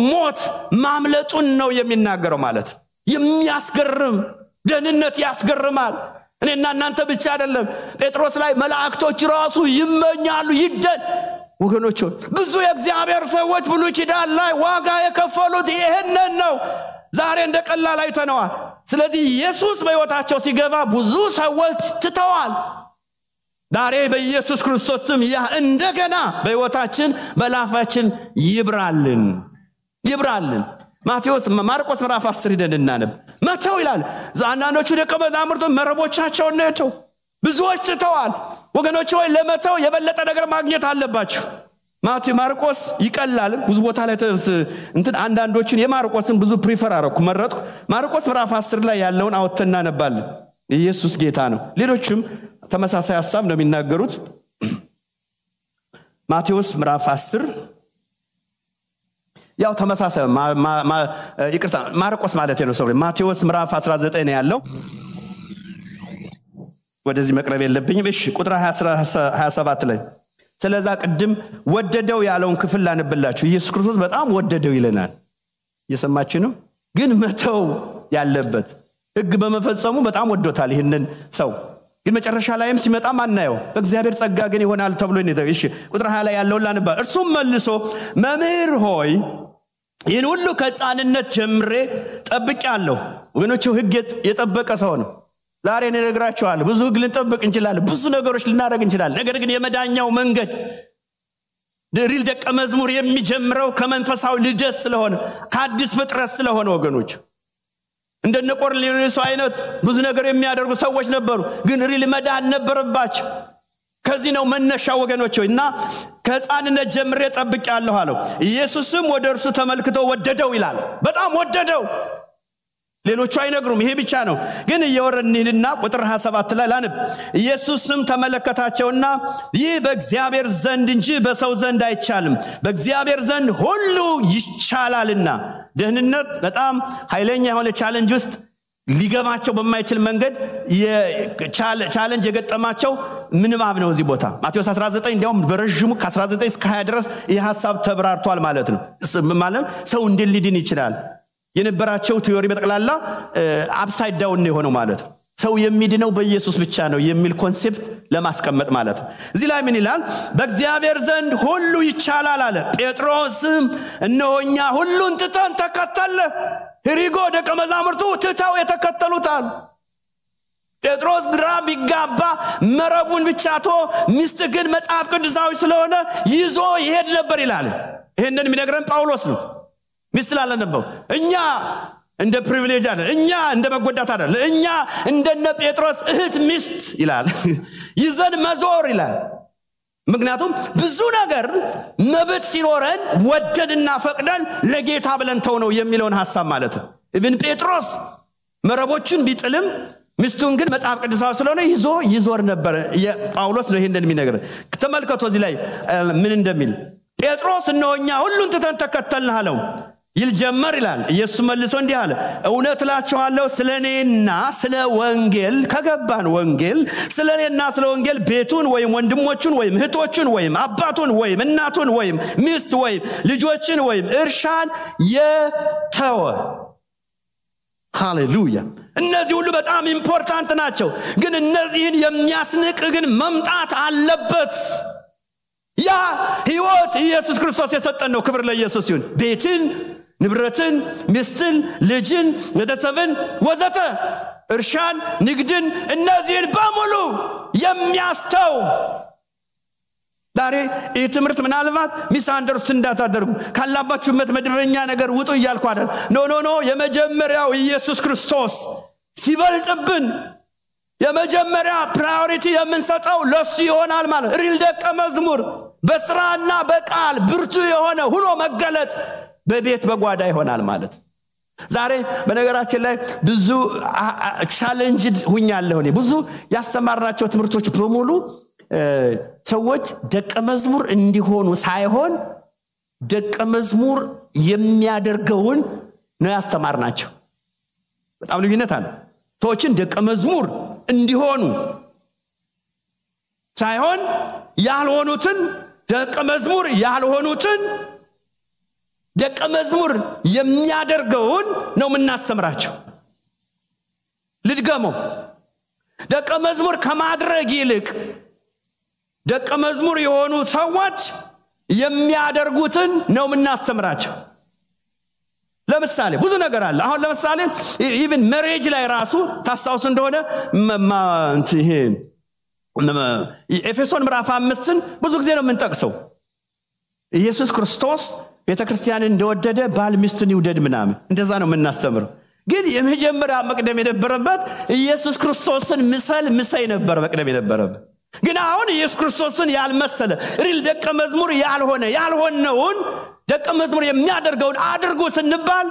ሞት ማምለጡን ነው የሚናገረው ማለት። የሚያስገርም ደህንነት ያስገርማል። እኔና እናንተ ብቻ አይደለም። ጴጥሮስ ላይ መላእክቶች ራሱ ይመኛሉ ወገኖች። ብዙ የእግዚአብሔር ሰዎች ብሉይ ኪዳን ላይ ዋጋ የከፈሉት ይሄንን ነው። ዛሬ እንደቀላል አይተነዋል። ስለዚህ ኢየሱስ በሕይወታቸው ሲገባ ብዙ ሰዎች ትተዋል። ዛሬ በኢየሱስ ክርስቶስ ስም ያ እንደገና በሕይወታችን በላፋችን ይብራልን። ማርቆስ ምዕራፍ 10 ሄደን እናነብ። መተው ይላል። አንዳንዶቹ ደቀ መዛሙርቱ መረቦቻቸውን ነው ብዙዎች ትተዋል። ወገኖች ሆይ ለመተው የበለጠ ነገር ማግኘት አለባችሁ። ማርቆስ ይቀላል ብዙ ቦታ ላይ አንዳንዶቹን የማርቆስን ብዙ ፕሪፈር መረጥኩ። ማርቆስ ምዕራፍ 10 ላይ ያለውን አውጥተና ነባለን። ኢየሱስ ጌታ ነው። ሌሎችም ተመሳሳይ ሐሳብ ነው የሚናገሩት። ማቴዎስ ምዕራፍ 10 ያው ተመሳሳይ ይቅርታ ማርቆስ ማለት ነው። ማቴዎስ ምዕራፍ 19 ነው ያለው። ወደዚህ መቅረብ የለብኝም። እሺ ቁጥር 27 ላይ ስለዛ ቅድም ወደደው ያለውን ክፍል ላንብላችሁ ኢየሱስ ክርስቶስ በጣም ወደደው ይለናል እየሰማችሁ ነው ግን መተው ያለበት ሕግ በመፈጸሙ በጣም ወዶታል ይሄንን ሰው ግን መጨረሻ ላይም ሲመጣ ማናየው በእግዚአብሔር ጸጋ ግን ይሆናል ተብሎ ነው እሺ ቁጥር 20 ላይ ያለው ላንባ እርሱም መልሶ መምህር ሆይ ይህን ሁሉ ከሕፃንነት ጀምሬ ጠብቄአለሁ ወገኖቹ ሕግ የጠበቀ ሰው ነው ዛሬ እኔ ነግራችኋለሁ ብዙ ሕግ ልንጠብቅ እንችላለን ብዙ ነገሮች ልናደርግ እንችላለን ነገር ግን የመዳኛው መንገድ ሪል ደቀ መዝሙር የሚጀምረው ከመንፈሳዊ ልደት ስለሆነ ከአዲስ ፍጥረት ስለሆነ ወገኖች እንደነ ቆርኔሌዎስ አይነት ብዙ ነገር የሚያደርጉ ሰዎች ነበሩ ግን ሪል መዳን ነበረባቸው ከዚህ ነው መነሻው ወገኖች እና ከሕፃንነት ጀምሬ ጠብቄአለሁ አለው ኢየሱስም ወደ እርሱ ተመልክቶ ወደደው ይላል በጣም ወደደው ሌሎቹ አይነግሩም ይሄ ብቻ ነው ግን እየወረድንና ቁጥር 27 ላይ ላንብ ኢየሱስም ተመለከታቸውና ይህ በእግዚአብሔር ዘንድ እንጂ በሰው ዘንድ አይቻልም በእግዚአብሔር ዘንድ ሁሉ ይቻላልና ደህንነት በጣም ኃይለኛ የሆነ ቻሌንጅ ውስጥ ሊገባቸው በማይችል መንገድ ቻሌንጅ የገጠማቸው ምንባብ ነው እዚህ ቦታ ማቴዎስ 19 እንዲያውም በረጅሙ ከ19 እስከ 20 ድረስ ይህ ሐሳብ ተብራርቷል ማለት ነው ማለት ሰው እንዴት ሊድን ይችላል የነበራቸው ቲዮሪ በጠቅላላ አፕሳይድ ዳውን ነው የሆነው ማለት ሰው የሚድነው በኢየሱስ ብቻ ነው የሚል ኮንሴፕት ለማስቀመጥ ማለት እዚህ ላይ ምን ይላል በእግዚአብሔር ዘንድ ሁሉ ይቻላል አለ ጴጥሮስም እነሆኛ ሁሉን ትተን ተከተለ ሄሪጎ ደቀ መዛሙርቱ ትተው የተከተሉታል ጴጥሮስ ግራ ቢጋባ መረቡን ብቻቶ ሚስት ግን መጽሐፍ ቅዱሳዊ ስለሆነ ይዞ ይሄድ ነበር ይላል ይሄንን የሚነግረን ጳውሎስ ነው ምስላለ ነበር እኛ እንደ ፕሪቪሌጅ አይደል እኛ እንደ መጎዳት አይደል እኛ እንደነ ጴጥሮስ እህት ሚስት ይላል ይዘን መዞር ይላል ምክንያቱም ብዙ ነገር መብት ሲኖረን ወደድና ፈቅደን ለጌታ ብለን ተው ነው የሚለውን ሐሳብ ማለት ነው ኢብን ጴጥሮስ መረቦችን ቢጥልም ሚስቱን ግን መጽሐፍ ቅዱሳዊ ስለሆነ ይዞር ነበር የጳውሎስ ነው ይሄንን የሚነግር ተመልከቱ እዚህ ላይ ምን እንደሚል ጴጥሮስ እነሆኛ ሁሉን ትተን ተከተልን አለው ይልጀመር ይላል ኢየሱስ መልሶ እንዲህ አለ እውነት እላችኋለሁ ስለኔና ስለ ወንጌል ከገባን ወንጌል ስለኔና ስለ ወንጌል ቤቱን ወይም ወንድሞቹን ወይም እህቶቹን ወይም አባቱን ወይም እናቱን ወይም ሚስት ወይም ልጆችን ወይም እርሻን የተወ ሃሌሉያ እነዚህ ሁሉ በጣም ኢምፖርታንት ናቸው ግን እነዚህን የሚያስንቅ ግን መምጣት አለበት ያ ሕይወት ኢየሱስ ክርስቶስ የሰጠን ነው ክብር ለኢየሱስ ይሁን ቤትን ንብረትን ሚስትን ልጅን ቤተሰብን ወዘተ እርሻን ንግድን እነዚህን በሙሉ የሚያስተው ዛሬ ይህ ትምህርት ምናልባት ሚስአንደርስታንድ እንዳታደርጉ ካላባችሁበት መደበኛ ነገር ውጡ እያልኩ አይደል ኖ የመጀመሪያው ኢየሱስ ክርስቶስ ሲበልጥብን የመጀመሪያ ፕራዮሪቲ የምንሰጠው ለሱ ይሆናል ማለት ሪል ደቀ መዝሙር በስራና በቃል ብርቱ የሆነ ሁሉ መገለጥ በቤት በጓዳ ይሆናል ማለት ዛሬ በነገራችን ላይ ብዙ ቻሌንጅ ሁኛለሁ እኔ ብዙ ያስተማርናቸው ትምህርቶች በሙሉ ሰዎች ደቀ መዝሙር እንዲሆኑ ሳይሆን ደቀ መዝሙር የሚያደርገውን ነው ያስተማርናቸው በጣም ልዩነት አለ ሰዎችን ደቀ መዝሙር እንዲሆኑ ሳይሆን ያልሆኑትን ደቀ መዝሙር ያልሆኑትን ደቀ መዝሙር የሚያደርገውን ነው የምናስተምራቸው ልድገመው ደቀ መዝሙር ከማድረግ ይልቅ ደቀ መዝሙር የሆኑ ሰዎች የሚያደርጉትን ነው የምናስተምራቸው ለምሳሌ ብዙ ነገር አለ አሁን ለምሳሌ ኢቭን ሜሬጅ ላይ ራሱ ታስታውሱ እንደሆነ ይሄ ኤፌሶን ምዕራፍ 5ን ብዙ ጊዜ ነው የምንጠቅሰው ኢየሱስ ክርስቶስ ቤተክርስቲያንን እንደወደደ ባል ሚስቱን ይውደድ ምናምን እንደዛ ነው የምናስተምረው ግን የመጀመሪያ መቅደም የነበረበት ኢየሱስ ክርስቶስን ምሰይ ነበር መቅደም የነበረበት ግን አሁን ኢየሱስ ክርስቶስን ያልመሰለ ሪል ደቀ መዝሙር ያልሆነውን ደቀ መዝሙር የሚያደርገውን አድርጉ ስንባል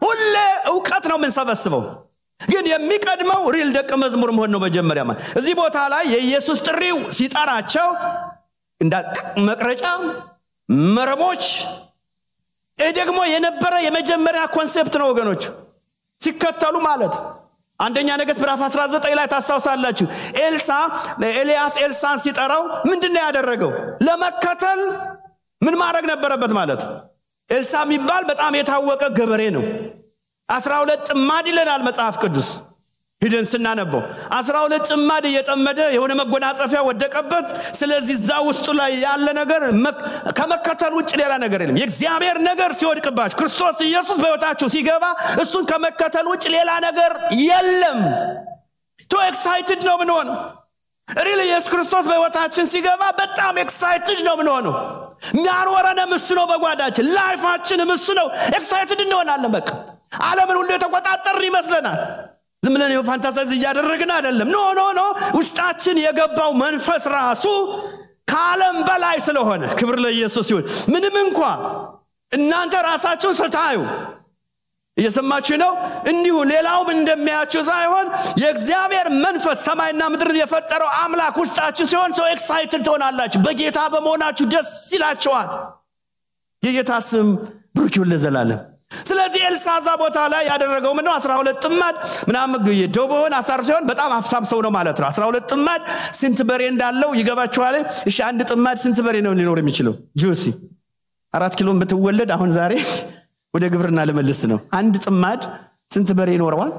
ሁሌ ዕውቀት ነው የምንሰበስበው ግን የሚቀድመው ሪል ደቀ መዝሙር መሆን ነው መጀመሪያ ማለት እዚህ ቦታ ላይ የኢየሱስ ጥሪው ሲጠራቸው እንደ መቅረጫ መረቦች ደግሞ የነበረ የመጀመሪያ ኮንሴፕት ነው ወገኖች ሲከተሉ ማለት አንደኛ ነገሥት ምዕራፍ 19 ላይ ታስታውሳላችሁ። ኤልያስ ኤልሳን ሲጠራው ምንድነው ያደረገው? ለመከተል ምን ማድረግ ነበረበት ማለት? ኤልሳ የሚባል በጣም የታወቀ ገበሬ ነው። 12 ጥማድ ይለናል መጽሐፍ ቅዱስ ሄደን ስናነበው 12 ጥማድ እየጠመደ የሆነ መጎናጸፊያ ወደቀበት። ስለዚህ እዛ ውስጡ ላይ ያለ ነገር ከመከተል ውጭ ሌላ ነገር የለም። የእግዚአብሔር ነገር ሲወድቅባችሁ ክርስቶስ ኢየሱስ በሕይወታችሁ ሲገባ እሱን ከመከተል ውጭ ሌላ ነገር የለም። ቶ ኤክሳይትድ ነው ምንሆነው። ሪሊ ኢየሱስ ክርስቶስ በሕይወታችን ሲገባ በጣም ኤክሳይትድ ነው ምንሆነው። የሚያኖረንም እሱ ነው። በጓዳችን ላይፋችንም እሱ ነው። ኤክሳይትድ እንሆናለን። በቃ ዓለምን ሁሉ የተቆጣጠርን ይመስለናል። ዝም ብለን ፋንታሳይዝ እያደረግን አይደለም። ኖ ውስጣችን የገባው መንፈስ ራሱ ከዓለም በላይ ስለሆነ ክብር ለኢየሱስ ይሁን። ምንም እንኳን እናንተ ራሳችሁን ስታዩ እየሰማችሁ ነው እንዲሁ ሌላውም እንደሚያችሁ ሳይሆን የእግዚአብሔር መንፈስ ሰማይና ምድርን የፈጠረው አምላክ ውስጣችሁ ሲሆን ሰው ኤክሳይትድ ትሆናላችሁ። በጌታ በመሆናችሁ ደስ ይላችኋል። የጌታ ስም ብሩክ ይሁን ለዘላለም። ስለዚህ ኤልሳዛ ቦታ ላይ ያደረገው ምንድነው? 12 ጥማድ ምናምን የዶቦን አሳር ሲሆን በጣም አፍታም ሰው ነው ማለት ነው። 12 ጥማድ ስንት በሬ እንዳለው ይገባችኋል? እሺ አንድ ጥማድ ስንት በሬ ነው ሊኖር የሚችለው? ጁሲ 4 ኪሎ ብትወለድ አሁን ዛሬ ወደ ግብርና ለመልስ ነው። አንድ ጥማድ ስንት በሬ ይኖረዋል?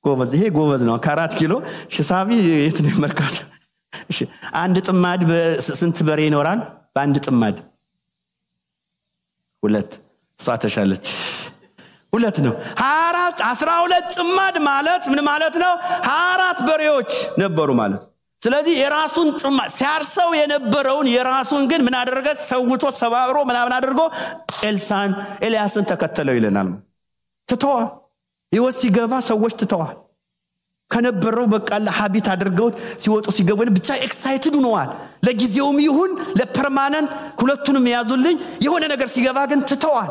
ጎበዝ፣ ይሄ ጎበዝ ነው። ከ4 ኪሎ ሽሳቢ የት ነው መርካት? እሺ አንድ ጥማድ ስንት በሬ ይኖራል? በአንድ ጥማድ 2 ሳተሻለች 2 ነው። 12 ጥማድ ማለት ምን ማለት ነው? 24 በሬዎች ነበሩ ማለት። ስለዚህ የራሱን ጥማድ ሲያርሰው የነበረውን የራሱን ግን ምን አደረገ? ሰውቶ ሰባብሮ ምናምን አድርጎ ኤልያስን ተከተለው ይለናል። ተተዋ ይወስ ሲገባ ሰዎች ተተዋል ከነበረው በቃ ለሐቢት አድርገው ሲወጡ ሲገቡ ብቻ ኤክሳይትድ ሆነዋል። ለጊዜውም ይሁን ለፐርማነንት ሁለቱንም ያዙልኝ የሆነ ነገር ሲገባ ግን ተተዋል።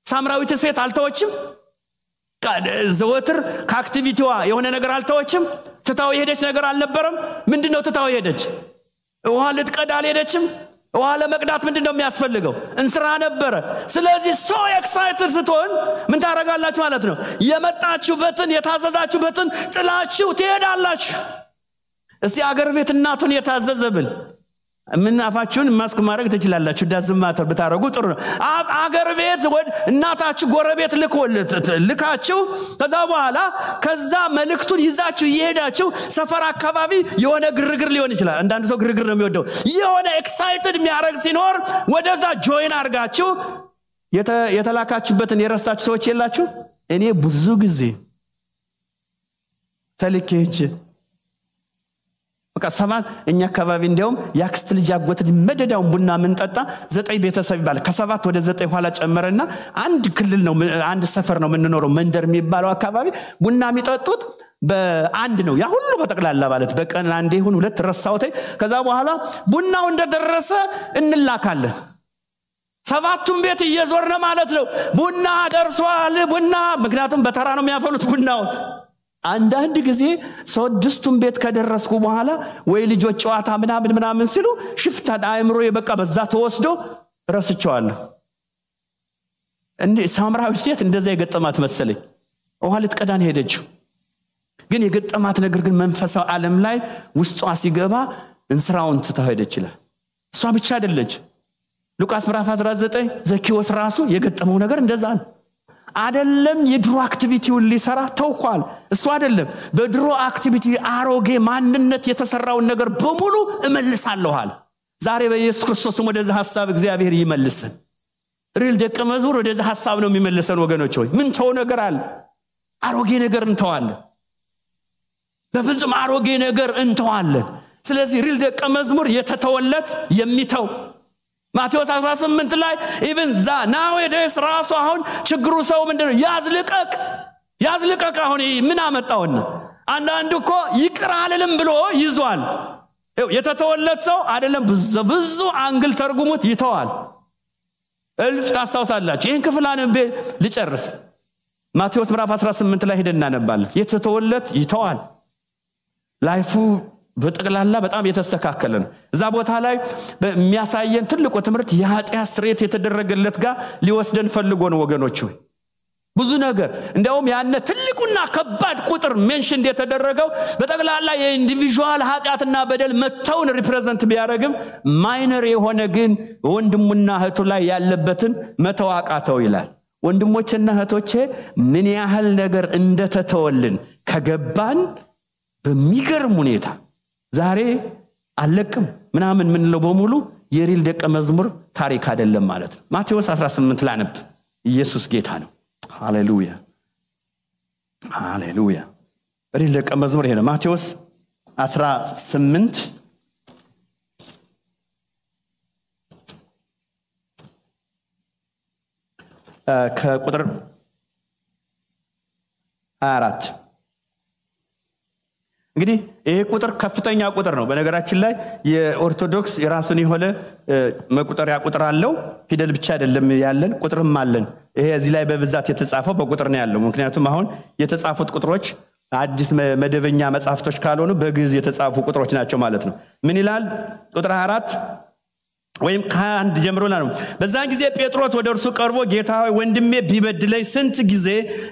ሳምራዊት ሴት አልተወችም። ዘወትር ከአክቲቪቲዋ የሆነ ነገር አልተወችም። ተታው የሄደች ነገር አልነበረም። ምንድነው ተታው የሄደች? ውሃ ልትቀዳ አልሄደችም። ውሃ ለመቅዳት ምንድነው የሚያስፈልገው? እንስራ ነበረ። ስለዚህ ሶ ኤክሳይትድ ስትሆን ምን ታረጋላችሁ ማለት ነው? የመጣችሁበትን የታዘዛችሁበትን ጥላችሁ ትሄዳላችሁ። እስቲ አገር ቤት እናቱን የታዘዘብል ምን አፋችሁን ማስክ ማድረግ ትችላላችሁ። ዳዝማተር ብታረጉ ጥሩ ነው። አገር ቤት ወድ እናታችሁ ጎረቤት ልካችሁ ከዛ በኋላ ከዛ መልእክቱን ይዛችሁ ይሄዳችሁ ሰፈር አካባቢ የሆነ ግርግር ሊሆን ይችላል። አንዳንድ ሰው ግርግር ነው የሚወደው። የሆነ ኤክሳይትድ የሚያረግ ሲኖር ወደዛ ጆይን አርጋችሁ የተላካችሁበትን የረሳችሁ ሰዎች የላችሁ? እኔ ብዙ ጊዜ ተልኬጅ በቃ ሰባት እኛ አካባቢ እንደውም ያክስት ልጅ አጎት መደዳውን ቡና ምንጠጣ 9 ቤተሰብ ይባላል። ከ7 ወደ 9 ኋላ ጨመረና አንድ ክልል ነው አንድ ሰፈር ነው የምንኖረው። መንደር የሚባለው አካባቢ ቡና የሚጠጡት በአንድ ነው። ያ ሁሉ በተቀላላ ማለት በቀን አንዴ ይሁን 2 ረሳውቴ። ከዛ በኋላ ቡናው እንደደረሰ እንላካለን። 7ቱም ቤት እየዞርነ ማለት ነው። ቡና ደርሷል ቡና። ምክንያቱም በተራ ነው የሚያፈሉት ቡናው። አንዳንድ ጊዜ 6ቱም ቤት ከደረስኩ በኋላ ወይ ልጆች ጨዋታ ምናምን ሲሉ ሽፍታ አእምሮ የበቃ በዛ ተወስዶ ረስቸዋለሁ። እንዴ ሳምራዊ ሴት እንደዛ የገጠማት መሰለኝ። ውሃ ልትቀዳን ሄደችው። ግን የገጠማት ነገር ግን መንፈሳዊ ዓለም ላይ ውስጧ ሲገባ እንስራውን ትተሄደ ይችላል። እሷ ብቻ አይደለች። ሉቃስ ምዕራፍ 19 ዘኪዎስ ራሱ የገጠመው ነገር እንደዛ ነው። አይደለም የድሮ አክቲቪቲውን ሊሰራ ተውቋል። እሱ አይደለም በድሮ አክቲቪቲ አሮጌ ማንነት የተሰራውን ነገር በሙሉ እመልሳለሁል። ዛሬ በኢየሱስ ክርስቶስ ወደዛ ሐሳብ እግዚአብሔር ይመልሰን። ሪል ደቀ መዝሙር ወደዛ ሐሳብ ነው የሚመልሰን ወገኖች ሆይ። ምን ተው ነገር አለ? አሮጌ ነገር እንተዋለን። በፍጹም አሮጌ ነገር እንተዋለን። ስለዚህ ሪል ደቀ መዝሙር የተተወለት የሚተው ማቴዎስ 18 ላይ even nowadays ራሱ አሁን ችግሩ ሰው ምንድነው? ያዝልቀቅ አሁን ምን አመጣውና አንዳንዱ እኮ ይቅር አልልም ብሎ ይዟል። የተተወለት ሰው አይደለም ብዙ አንግል ተርጉሙት ይተዋል። እልፍ ታስታውሳላችሁ። ይሄን ክፍል አንብቤ ልጨርስ። ማቴዎስ ምዕራፍ 18 ላይ ሄደን እናነባለን። የተተወለት ይተዋል። ላይፉ በጠቅላላ በጣም የተስተካከለ ነው። እዛ ቦታ ላይ በሚያሳየን ትልቁ ትምህርት የኃጢአት ስርየት የተደረገለት ጋር ሊወስደን ፈልጎ ነው ወገኖች ሆይ። ብዙ ነገር እንደውም ያነ ትልቁና ከባድ ቁጥር ሜንሽን የተደረገው በጠቅላላ የኢንዲቪጁዋል ኃጢአትና በደል መተውን ሪፕሬዘንት ቢያደርግም ማይነር የሆነ ግን ወንድሙና እህቱ ላይ ያለበትን መተዋቃተው ይላል። ወንድሞችና እህቶቼ ምን ያህል ነገር እንደተተወልን ከገባን በሚገርም ሁኔታ ዛሬ አለቅም ምናምን ምን ነው በሙሉ የሪል ደቀ መዝሙር ታሪክ አይደለም ማለት ነው። ማቴዎስ 18 ላነብ። ኢየሱስ ጌታ ነው። ሃሌሉያ ሃሌሉያ። ሪል ደቀ መዝሙር ይሄ ነው። ማቴዎስ 18 ከቁጥር 24 እንግዲህ ይሄ ቁጥር ከፍተኛ ቁጥር ነው። በነገራችን ላይ የኦርቶዶክስ የራሱን የሆነ መቁጠሪያ ቁጥር አለው። ፊደል ብቻ አይደለም ያለን ቁጥርም አለን። ይሄ እዚህ ላይ በብዛት የተጻፈው በቁጥር ነው ያለው። ምክንያቱም አሁን የተጻፉት ቁጥሮች አዲስ መደበኛ መጻፍቶች ካልሆኑ በግዕዝ የተጻፉ ቁጥሮች ናቸው ማለት ነው። ምን ይላል ቁጥር 24 ወይም ከአንድ ጀምሮና ነው። በዛን ጊዜ ጴጥሮስ ወደ እርሱ ቀርቦ ጌታ ሆይ ወንድሜ ቢበድለኝ ስንት ጊዜ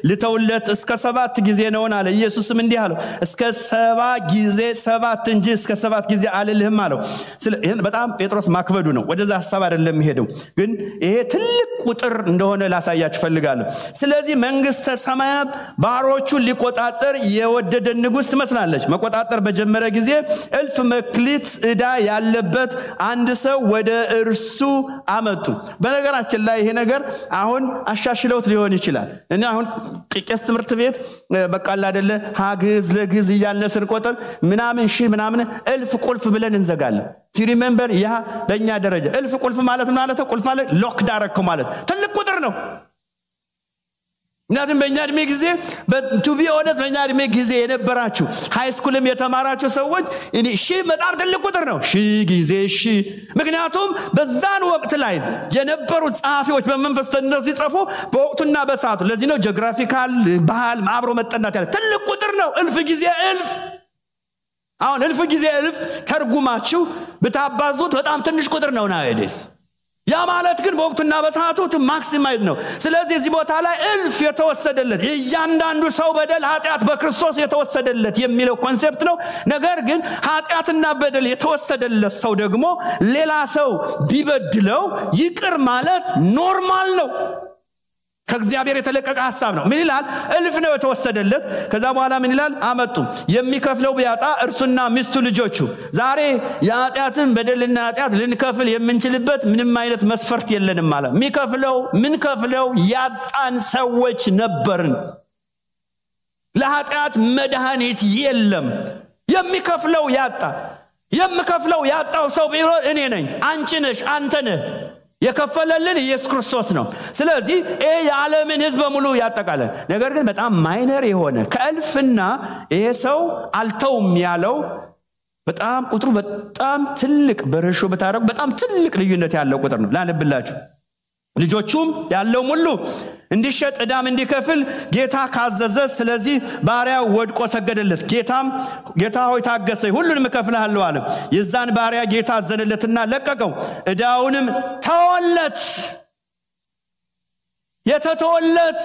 ልተውለት? እስከ 7 ጊዜ ነው አለ። ኢየሱስም እንዲህ አለው እስከ 7 ጊዜ 7 እንጂ እስከ 7 ጊዜ አልልህም አለው። ይሄን በጣም ጴጥሮስ ማክበዱ ነው። ወደዛ ሐሳብ አይደለም ሄደው፣ ግን ይሄ ትልቅ ቁጥር እንደሆነ ላሳያችሁ ፈልጋለሁ። ስለዚህ መንግስተ ሰማያት ባሮቹን ሊቆጣጠር የወደደ ንጉስ ትመስላለች። መቆጣጠር በጀመረ ጊዜ እልፍ መክሊት ዕዳ ያለበት አንድ ሰው ወደ እርሱ አመጡ። በነገራችን ላይ ይሄ ነገር አሁን አሻሽለውት ሊሆን ይችላል። እና አሁን ቄስ ትምህርት ቤት በቃል አይደለ ሀግዝ ለግዝ እያነስን ቆጠር ምናምን ሺ ምናምን እልፍ ቁልፍ ብለን እንዘጋለን። ቱ ሪሜምበር ያ በእኛ ደረጃ እልፍ ቁልፍ ማለት ቁልፍ ማለት ሎክ ዳረክ ማለት ትልቅ ቁጥር ነው። እናንተም በእኛ እድሜ ጊዜ ቱ ቢ ኦነስት በእኛ እድሜ ጊዜ የነበራችሁ ሃይ ስኩልም የተማራችሁ ሰዎች እኔ ሺ በጣም ትልቅ ቁጥር ነው። ሺ ጊዜ ሺ። ምክንያቱም በዛን ወቅት ላይ የነበሩ ጻፊዎች በመንፈስ ተነሱ ሲጽፉ በወቅቱና በሰዓቱ ለዚህ ነው ጂኦግራፊካል ባህል አብሮ መጠናት ያለ ትልቅ ቁጥር ነው። እልፍ ጊዜ እልፍ። አሁን እልፍ ጊዜ እልፍ ተርጉማችሁ ብታባዙት በጣም ትንሽ ቁጥር ነው ናይዴስ። ያ ማለት ግን በወቅቱና በሰዓቱ ማክሲማይዝ ነው። ስለዚህ እዚህ ቦታ ላይ እልፍ የተወሰደለት እያንዳንዱ ሰው በደል ኃጢአት በክርስቶስ የተወሰደለት የሚለው ኮንሴፕት ነው። ነገር ግን ኃጢአትና በደል የተወሰደለት ሰው ደግሞ ሌላ ሰው ቢበድለው ይቅር ማለት ኖርማል ነው። ከእግዚአብሔር የተለቀቀ ሐሳብ ነው። ምን ይላል? እልፍ ነው የተወሰደለት። ከዛ በኋላ ምን ይላል? አመጡ የሚከፍለው ቢያጣ እርሱና ሚስቱ ልጆቹ። ዛሬ የኃጢአትን በደልና ኃጢአት ልንከፍል የምንችልበት ምንም አይነት መስፈርት የለንም ማለት ምን ከፍለው ያጣን ሰዎች ነበርን። ለኃጢአት መድኃኒት የለም። የሚከፍለው ያጣው ሰው ቢሆን እኔ ነኝ፣ አንቺ ነሽ፣ አንተ ነህ። የከፈለልን ኢየሱስ ክርስቶስ ነው። ስለዚህ የዓለምን ሕዝብ በሙሉ ያጠቃልላል። ነገር ግን በጣም ማይነር የሆነ ከእልፍና ይሄ ሰው አልተውም ያለው በጣም ቁጥሩ በጣም ትልቅ በረሾ በታረቁ በጣም ትልቅ ልዩነት ያለው ቁጥር ነው። ላነብላችሁ። ልጆቹም ያለው ሁሉ እንዲሸጥ ዕዳም እንዲከፍል ጌታ ካዘዘ፣ ስለዚህ ባሪያው ወድቆ ሰገደለት። ጌታ ሆይ ታገሰኝ፣ ሁሉንም እከፍልሃለሁ አለ። የዛን ባሪያ ጌታ አዘነለትና ለቀቀው፣ ዕዳውንም ተወለት። የተተወለት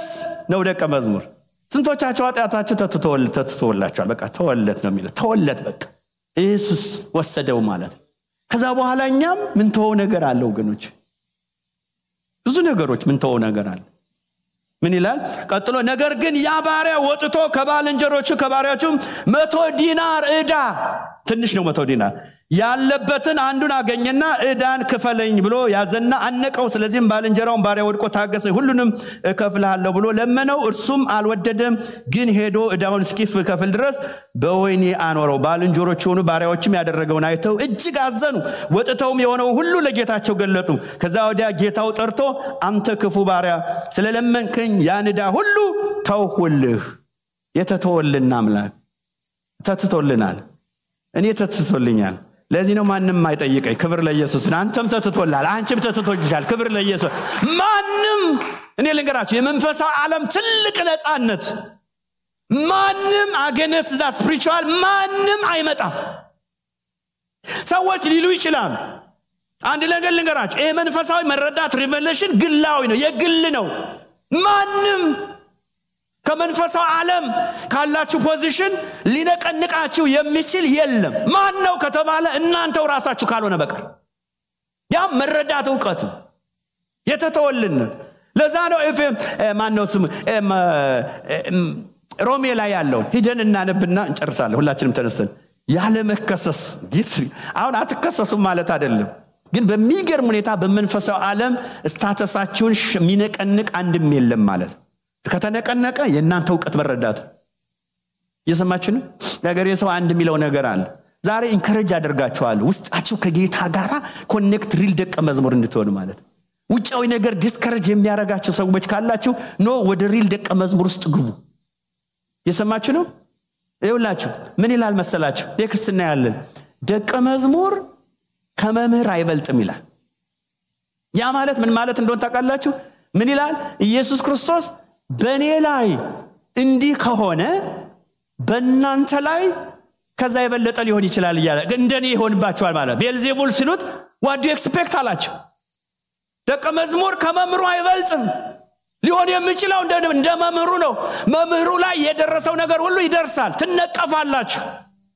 ነው ደቀ መዝሙር። ስንቶቻችሁ ኃጢአታችሁ ተተወላችኋል? በቃ ተወለት ነው የሚለው። ተወለት በቃ ኢየሱስ ወሰደው ማለት። ከዛ በኋላ እኛም ምን ተወው ነገር አለ ወገኖች፣ ብዙ ነገሮች ምን ተወው ነገር አለ። ምን ይላል ቀጥሎ? ነገር ግን ያ ባሪያ ወጥቶ ከባልንጀሮቹ ከባሪያዎቹ 100 ዲናር ዕዳ፣ ትንሽ ነው 100 ዲናር ያለበትን አንዱን አገኘና ዕዳን ክፈለኝ ብሎ ያዘና አነቀው። ስለዚህም ባልንጀራውን ባሪያ ወድቆ ታገሰኝ፣ ሁሉንም እከፍልሃለሁ ብሎ ለመነው። እርሱም አልወደደም፣ ግን ሄዶ ዕዳውን እስኪከፍል ድረስ በወህኒ አኖረው። ባልንጀሮቹ ሆኑ ባሪያዎችም ያደረገውን አይተው እጅግ አዘኑ። ወጥተውም የሆነው ሁሉ ለጌታቸው ገለጡ። ከዛ ወዲያ ጌታው ጠርቶ አንተ ክፉ ባሪያ፣ ስለለመንከኝ ያን ዕዳ ሁሉ ተውሁልህ። የተተወልን አምላክ ተትቶልናል። እኔ ተትቶልኛል። ለዚህ ነው ማንም አይጠይቀኝ። ክብር ለኢየሱስ። አንተም ተትቶላል፣ አንቺም ተትቶልሻል። ክብር ለኢየሱስ። ማንም እኔ ልንገራችሁ የመንፈሳዊ ዓለም ትልቅ ነፃነት ማንም አገነስ ዛ ስፒሪቹዋል ማንም አይመጣም። ሰዎች ሊሉ ይችላል። አንድ ነገር ልንገራችሁ፣ ይሄ መንፈሳዊ መረዳት ሪቨሌሽን ግላዊ ነው፣ የግል ነው። ማንም ከመንፈሳዊ ዓለም ካላችሁ ፖዚሽን ሊነቀንቃችሁ የሚችል የለም። ማን ነው ከተባለ እናንተው ራሳችሁ ካልሆነ በቀር ያ መረዳት ዕውቀት የተተወልን። ለዛ ነው ማን ነው ስሙ ሮሜ ላይ ያለው ሂደን እናነብና እንጨርሳለን። ሁላችንም ተነስተን ያለ መከሰስ አሁን አትከሰሱም ማለት አይደለም፣ ግን በሚገርም ሁኔታ በመንፈሳዊ ዓለም ስታተሳችሁን የሚነቀንቅ አንድም የለም ማለት። ከተነቀነቀ የእናንተ ዕውቀት መረዳት እየሰማችሁ ነው። ነገር የሰው አንድ የሚለው ነገር አለ። ዛሬ ኢንከሬጅ አደርጋችኋለሁ ውስጣችሁ ከጌታ ጋር ኮኔክት ሪል ደቀ መዝሙር እንድትሆኑ ማለት። ውጫዊ ነገር ዲስከሬጅ የሚያረጋችሁ ሰዎች ካላችሁ ኖ ወደ ሪል ደቀ መዝሙር ውስጥ ግቡ። እየሰማችሁ ነው። ይኸውላችሁ ምን ይላል መሰላችሁ? የክርስትና ያለን ደቀ መዝሙር ከመምህር አይበልጥም ይላል። ያ ማለት ምን ማለት እንደሆነ ታውቃላችሁ? ምን ይላል? ኢየሱስ ክርስቶስ በእኔ ላይ እንዲህ ከሆነ በእናንተ ላይ ከዛ የበለጠ ሊሆን ይችላል እያለ እንደኔ ይሆንባችኋል ማለት። ቤልዜቡል ሲሉት what do you expect አላቸው። ደቀ መዝሙር ከመምህሩ አይበልጥም። ሊሆን የሚችለው እንደ መምህሩ ነው። መምህሩ ላይ የደረሰው ነገር ሁሉ ይደርሳል። ትነቀፋላችሁ።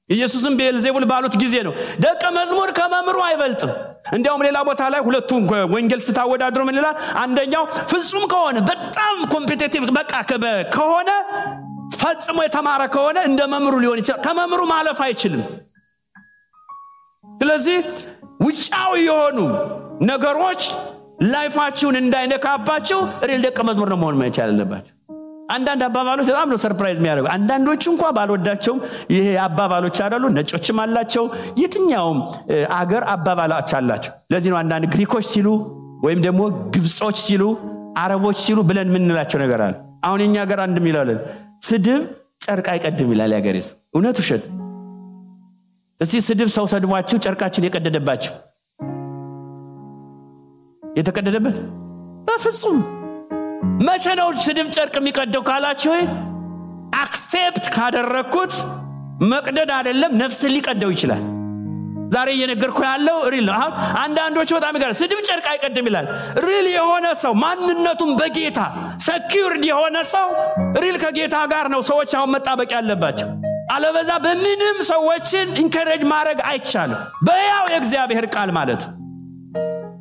ኢየሱስም ቤልዜቡል ባሉት ጊዜ ነው ደቀ መዝሙር ከመምህሩ አይበልጥም። እንዲያውም ሌላ ቦታ ላይ ሁለቱም ወንጌል ስታወዳድሩ ምን ይላል? አንደኛው ፍጹም ከሆነ በጣም ኮምፒቲቲቭ በቃ ከሆነ ፈጽሞ የተማረ ከሆነ እንደ መምህሩ ሊሆን ይችላል። ከመምህሩ ማለፍ አይችልም። ስለዚህ ውጫዊ የሆኑ ነገሮች ላይፋችሁን እንዳይነካባችሁ ሪል ደቀ መዝሙር ነው መሆን መቻል አለባችሁ። አንዳንድ አባባሎች በጣም ነው ሰርፕራይዝ የሚያደርጉ። አንዳንዶቹ እንኳን ባልወዳቸውም ይሄ አባባሎች አይደሉ፣ ነጮችም አላቸው፣ የትኛውም አገር አባባሎች አላቸው። ለዚህ ነው አንዳንድ ግሪኮች ሲሉ ወይም ደግሞ ግብጾች ሲሉ አረቦች ሲሉ ብለን ምንላቸው ነገር አለ። አሁን የኛ ሀገር አንድም ይላል ስድብ ጨርቅ አይቀድም ይላል ያገሬስ። እውነት ውሸት? እስቲ ስድብ ሰው ሰድቧችሁ ጨርቃችን የቀደደባችሁ የተቀደደበት በፍጹም መቼ ነው ስድብ ጨርቅ የሚቀደው ካላችሁ አክሴፕት ካደረኩት መቅደድ አይደለም ነፍስ ሊቀደው ይችላል። ዛሬ እየነገርኩ ያለው ሪል ነው። አሁን አንዳንዶቹ በጣም ይገርም ስድብ ጨርቅ አይቀድም ይላል። ሪል የሆነ ሰው ማንነቱን በጌታ ሰኪዩርድ የሆነ ሰው ሪል ከጌታ ጋር ነው ሰዎች አሁን መጣበቅ ያለባቸው። አለበዛ በምንም ሰዎችን ኢንከሬጅ ማድረግ አይቻልም። በያው የእግዚአብሔር ቃል ማለት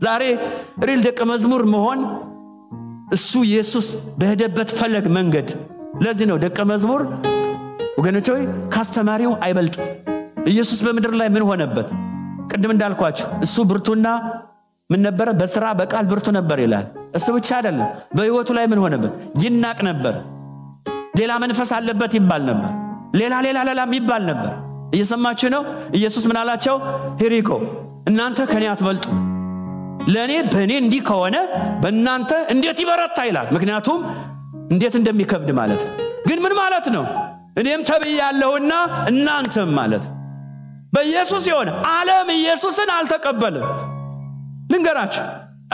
ዛሬ ሪል ደቀ መዝሙር መሆን እሱ ኢየሱስ በሄደበት ፈለግ መንገድ። ለዚህ ነው ደቀ መዝሙር ወገኖች ሆይ ካስተማሪው አይበልጥም። ኢየሱስ በመድር ላይ ምን ሆነበት? ቅድም እንዳልኳችሁ እሱ ብርቱና ምን ነበረ? በስራ በቃል ብርቱ ነበር ይላል። እሱ ብቻ አይደለም፣ በህይወቱ ላይ ምን ሆነበት? ይናቅ ነበር። ሌላ መንፈስ አለበት ይባል ነበር። ሌላ ይባል ነበር። እየሰማችሁ ነው? ኢየሱስ ምን አላቸው? ሄሪኮ እናንተ ከኔ አትበልጡ። ለኔ በኔ እንዲህ ከሆነ በእናንተ እንዴት ይበረታ ይላል። ምክንያቱም እንዴት እንደሚከብድ ማለት ግን ምን ማለት ነው? እኔም ተብያለሁና እናንተም ማለት በኢየሱስ የሆነ ዓለም ኢየሱስን አልተቀበለም። ልንገራችሁ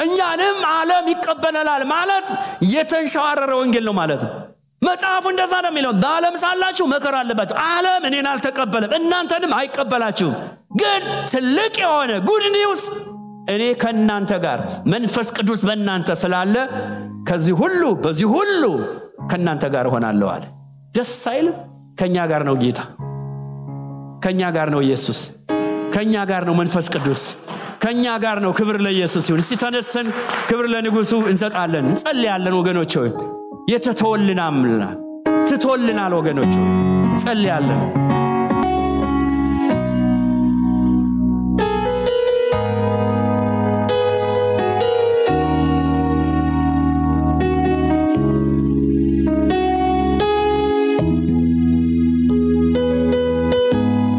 እኛንም ዓለም ይቀበላል ማለት የተንሻረረ ወንጌል ነው ማለት ነው። መጽሐፉ እንደዛ ነው የሚለው። በዓለም ሳላችሁ መከራ አለባችሁ። ዓለም እኔን አልተቀበለም እናንተንም አይቀበላችሁም። ግን ትልቅ የሆነ ጉድ ኒውስ እኔ ከናንተ ጋር መንፈስ ቅዱስ በእናንተ ስላለ ከዚህ ሁሉ በዚህ ሁሉ ከናንተ ጋር ሆናለሁ አለ። ደስ አይልም? ከኛ ጋር ነው ጌታ፣ ከኛ ጋር ነው ኢየሱስ፣ ከኛ ጋር ነው መንፈስ ቅዱስ፣ ከኛ ጋር ነው። ክብር ለኢየሱስ ይሁን። እስቲ ተነስተን ክብር ለንጉሱ እንሰጣለን፣ እንጸልያለን ወገኖች ሆይ። የተተወልን አምላክ ትተወልናል ወገኖች ሆይ፣ እንጸልያለን።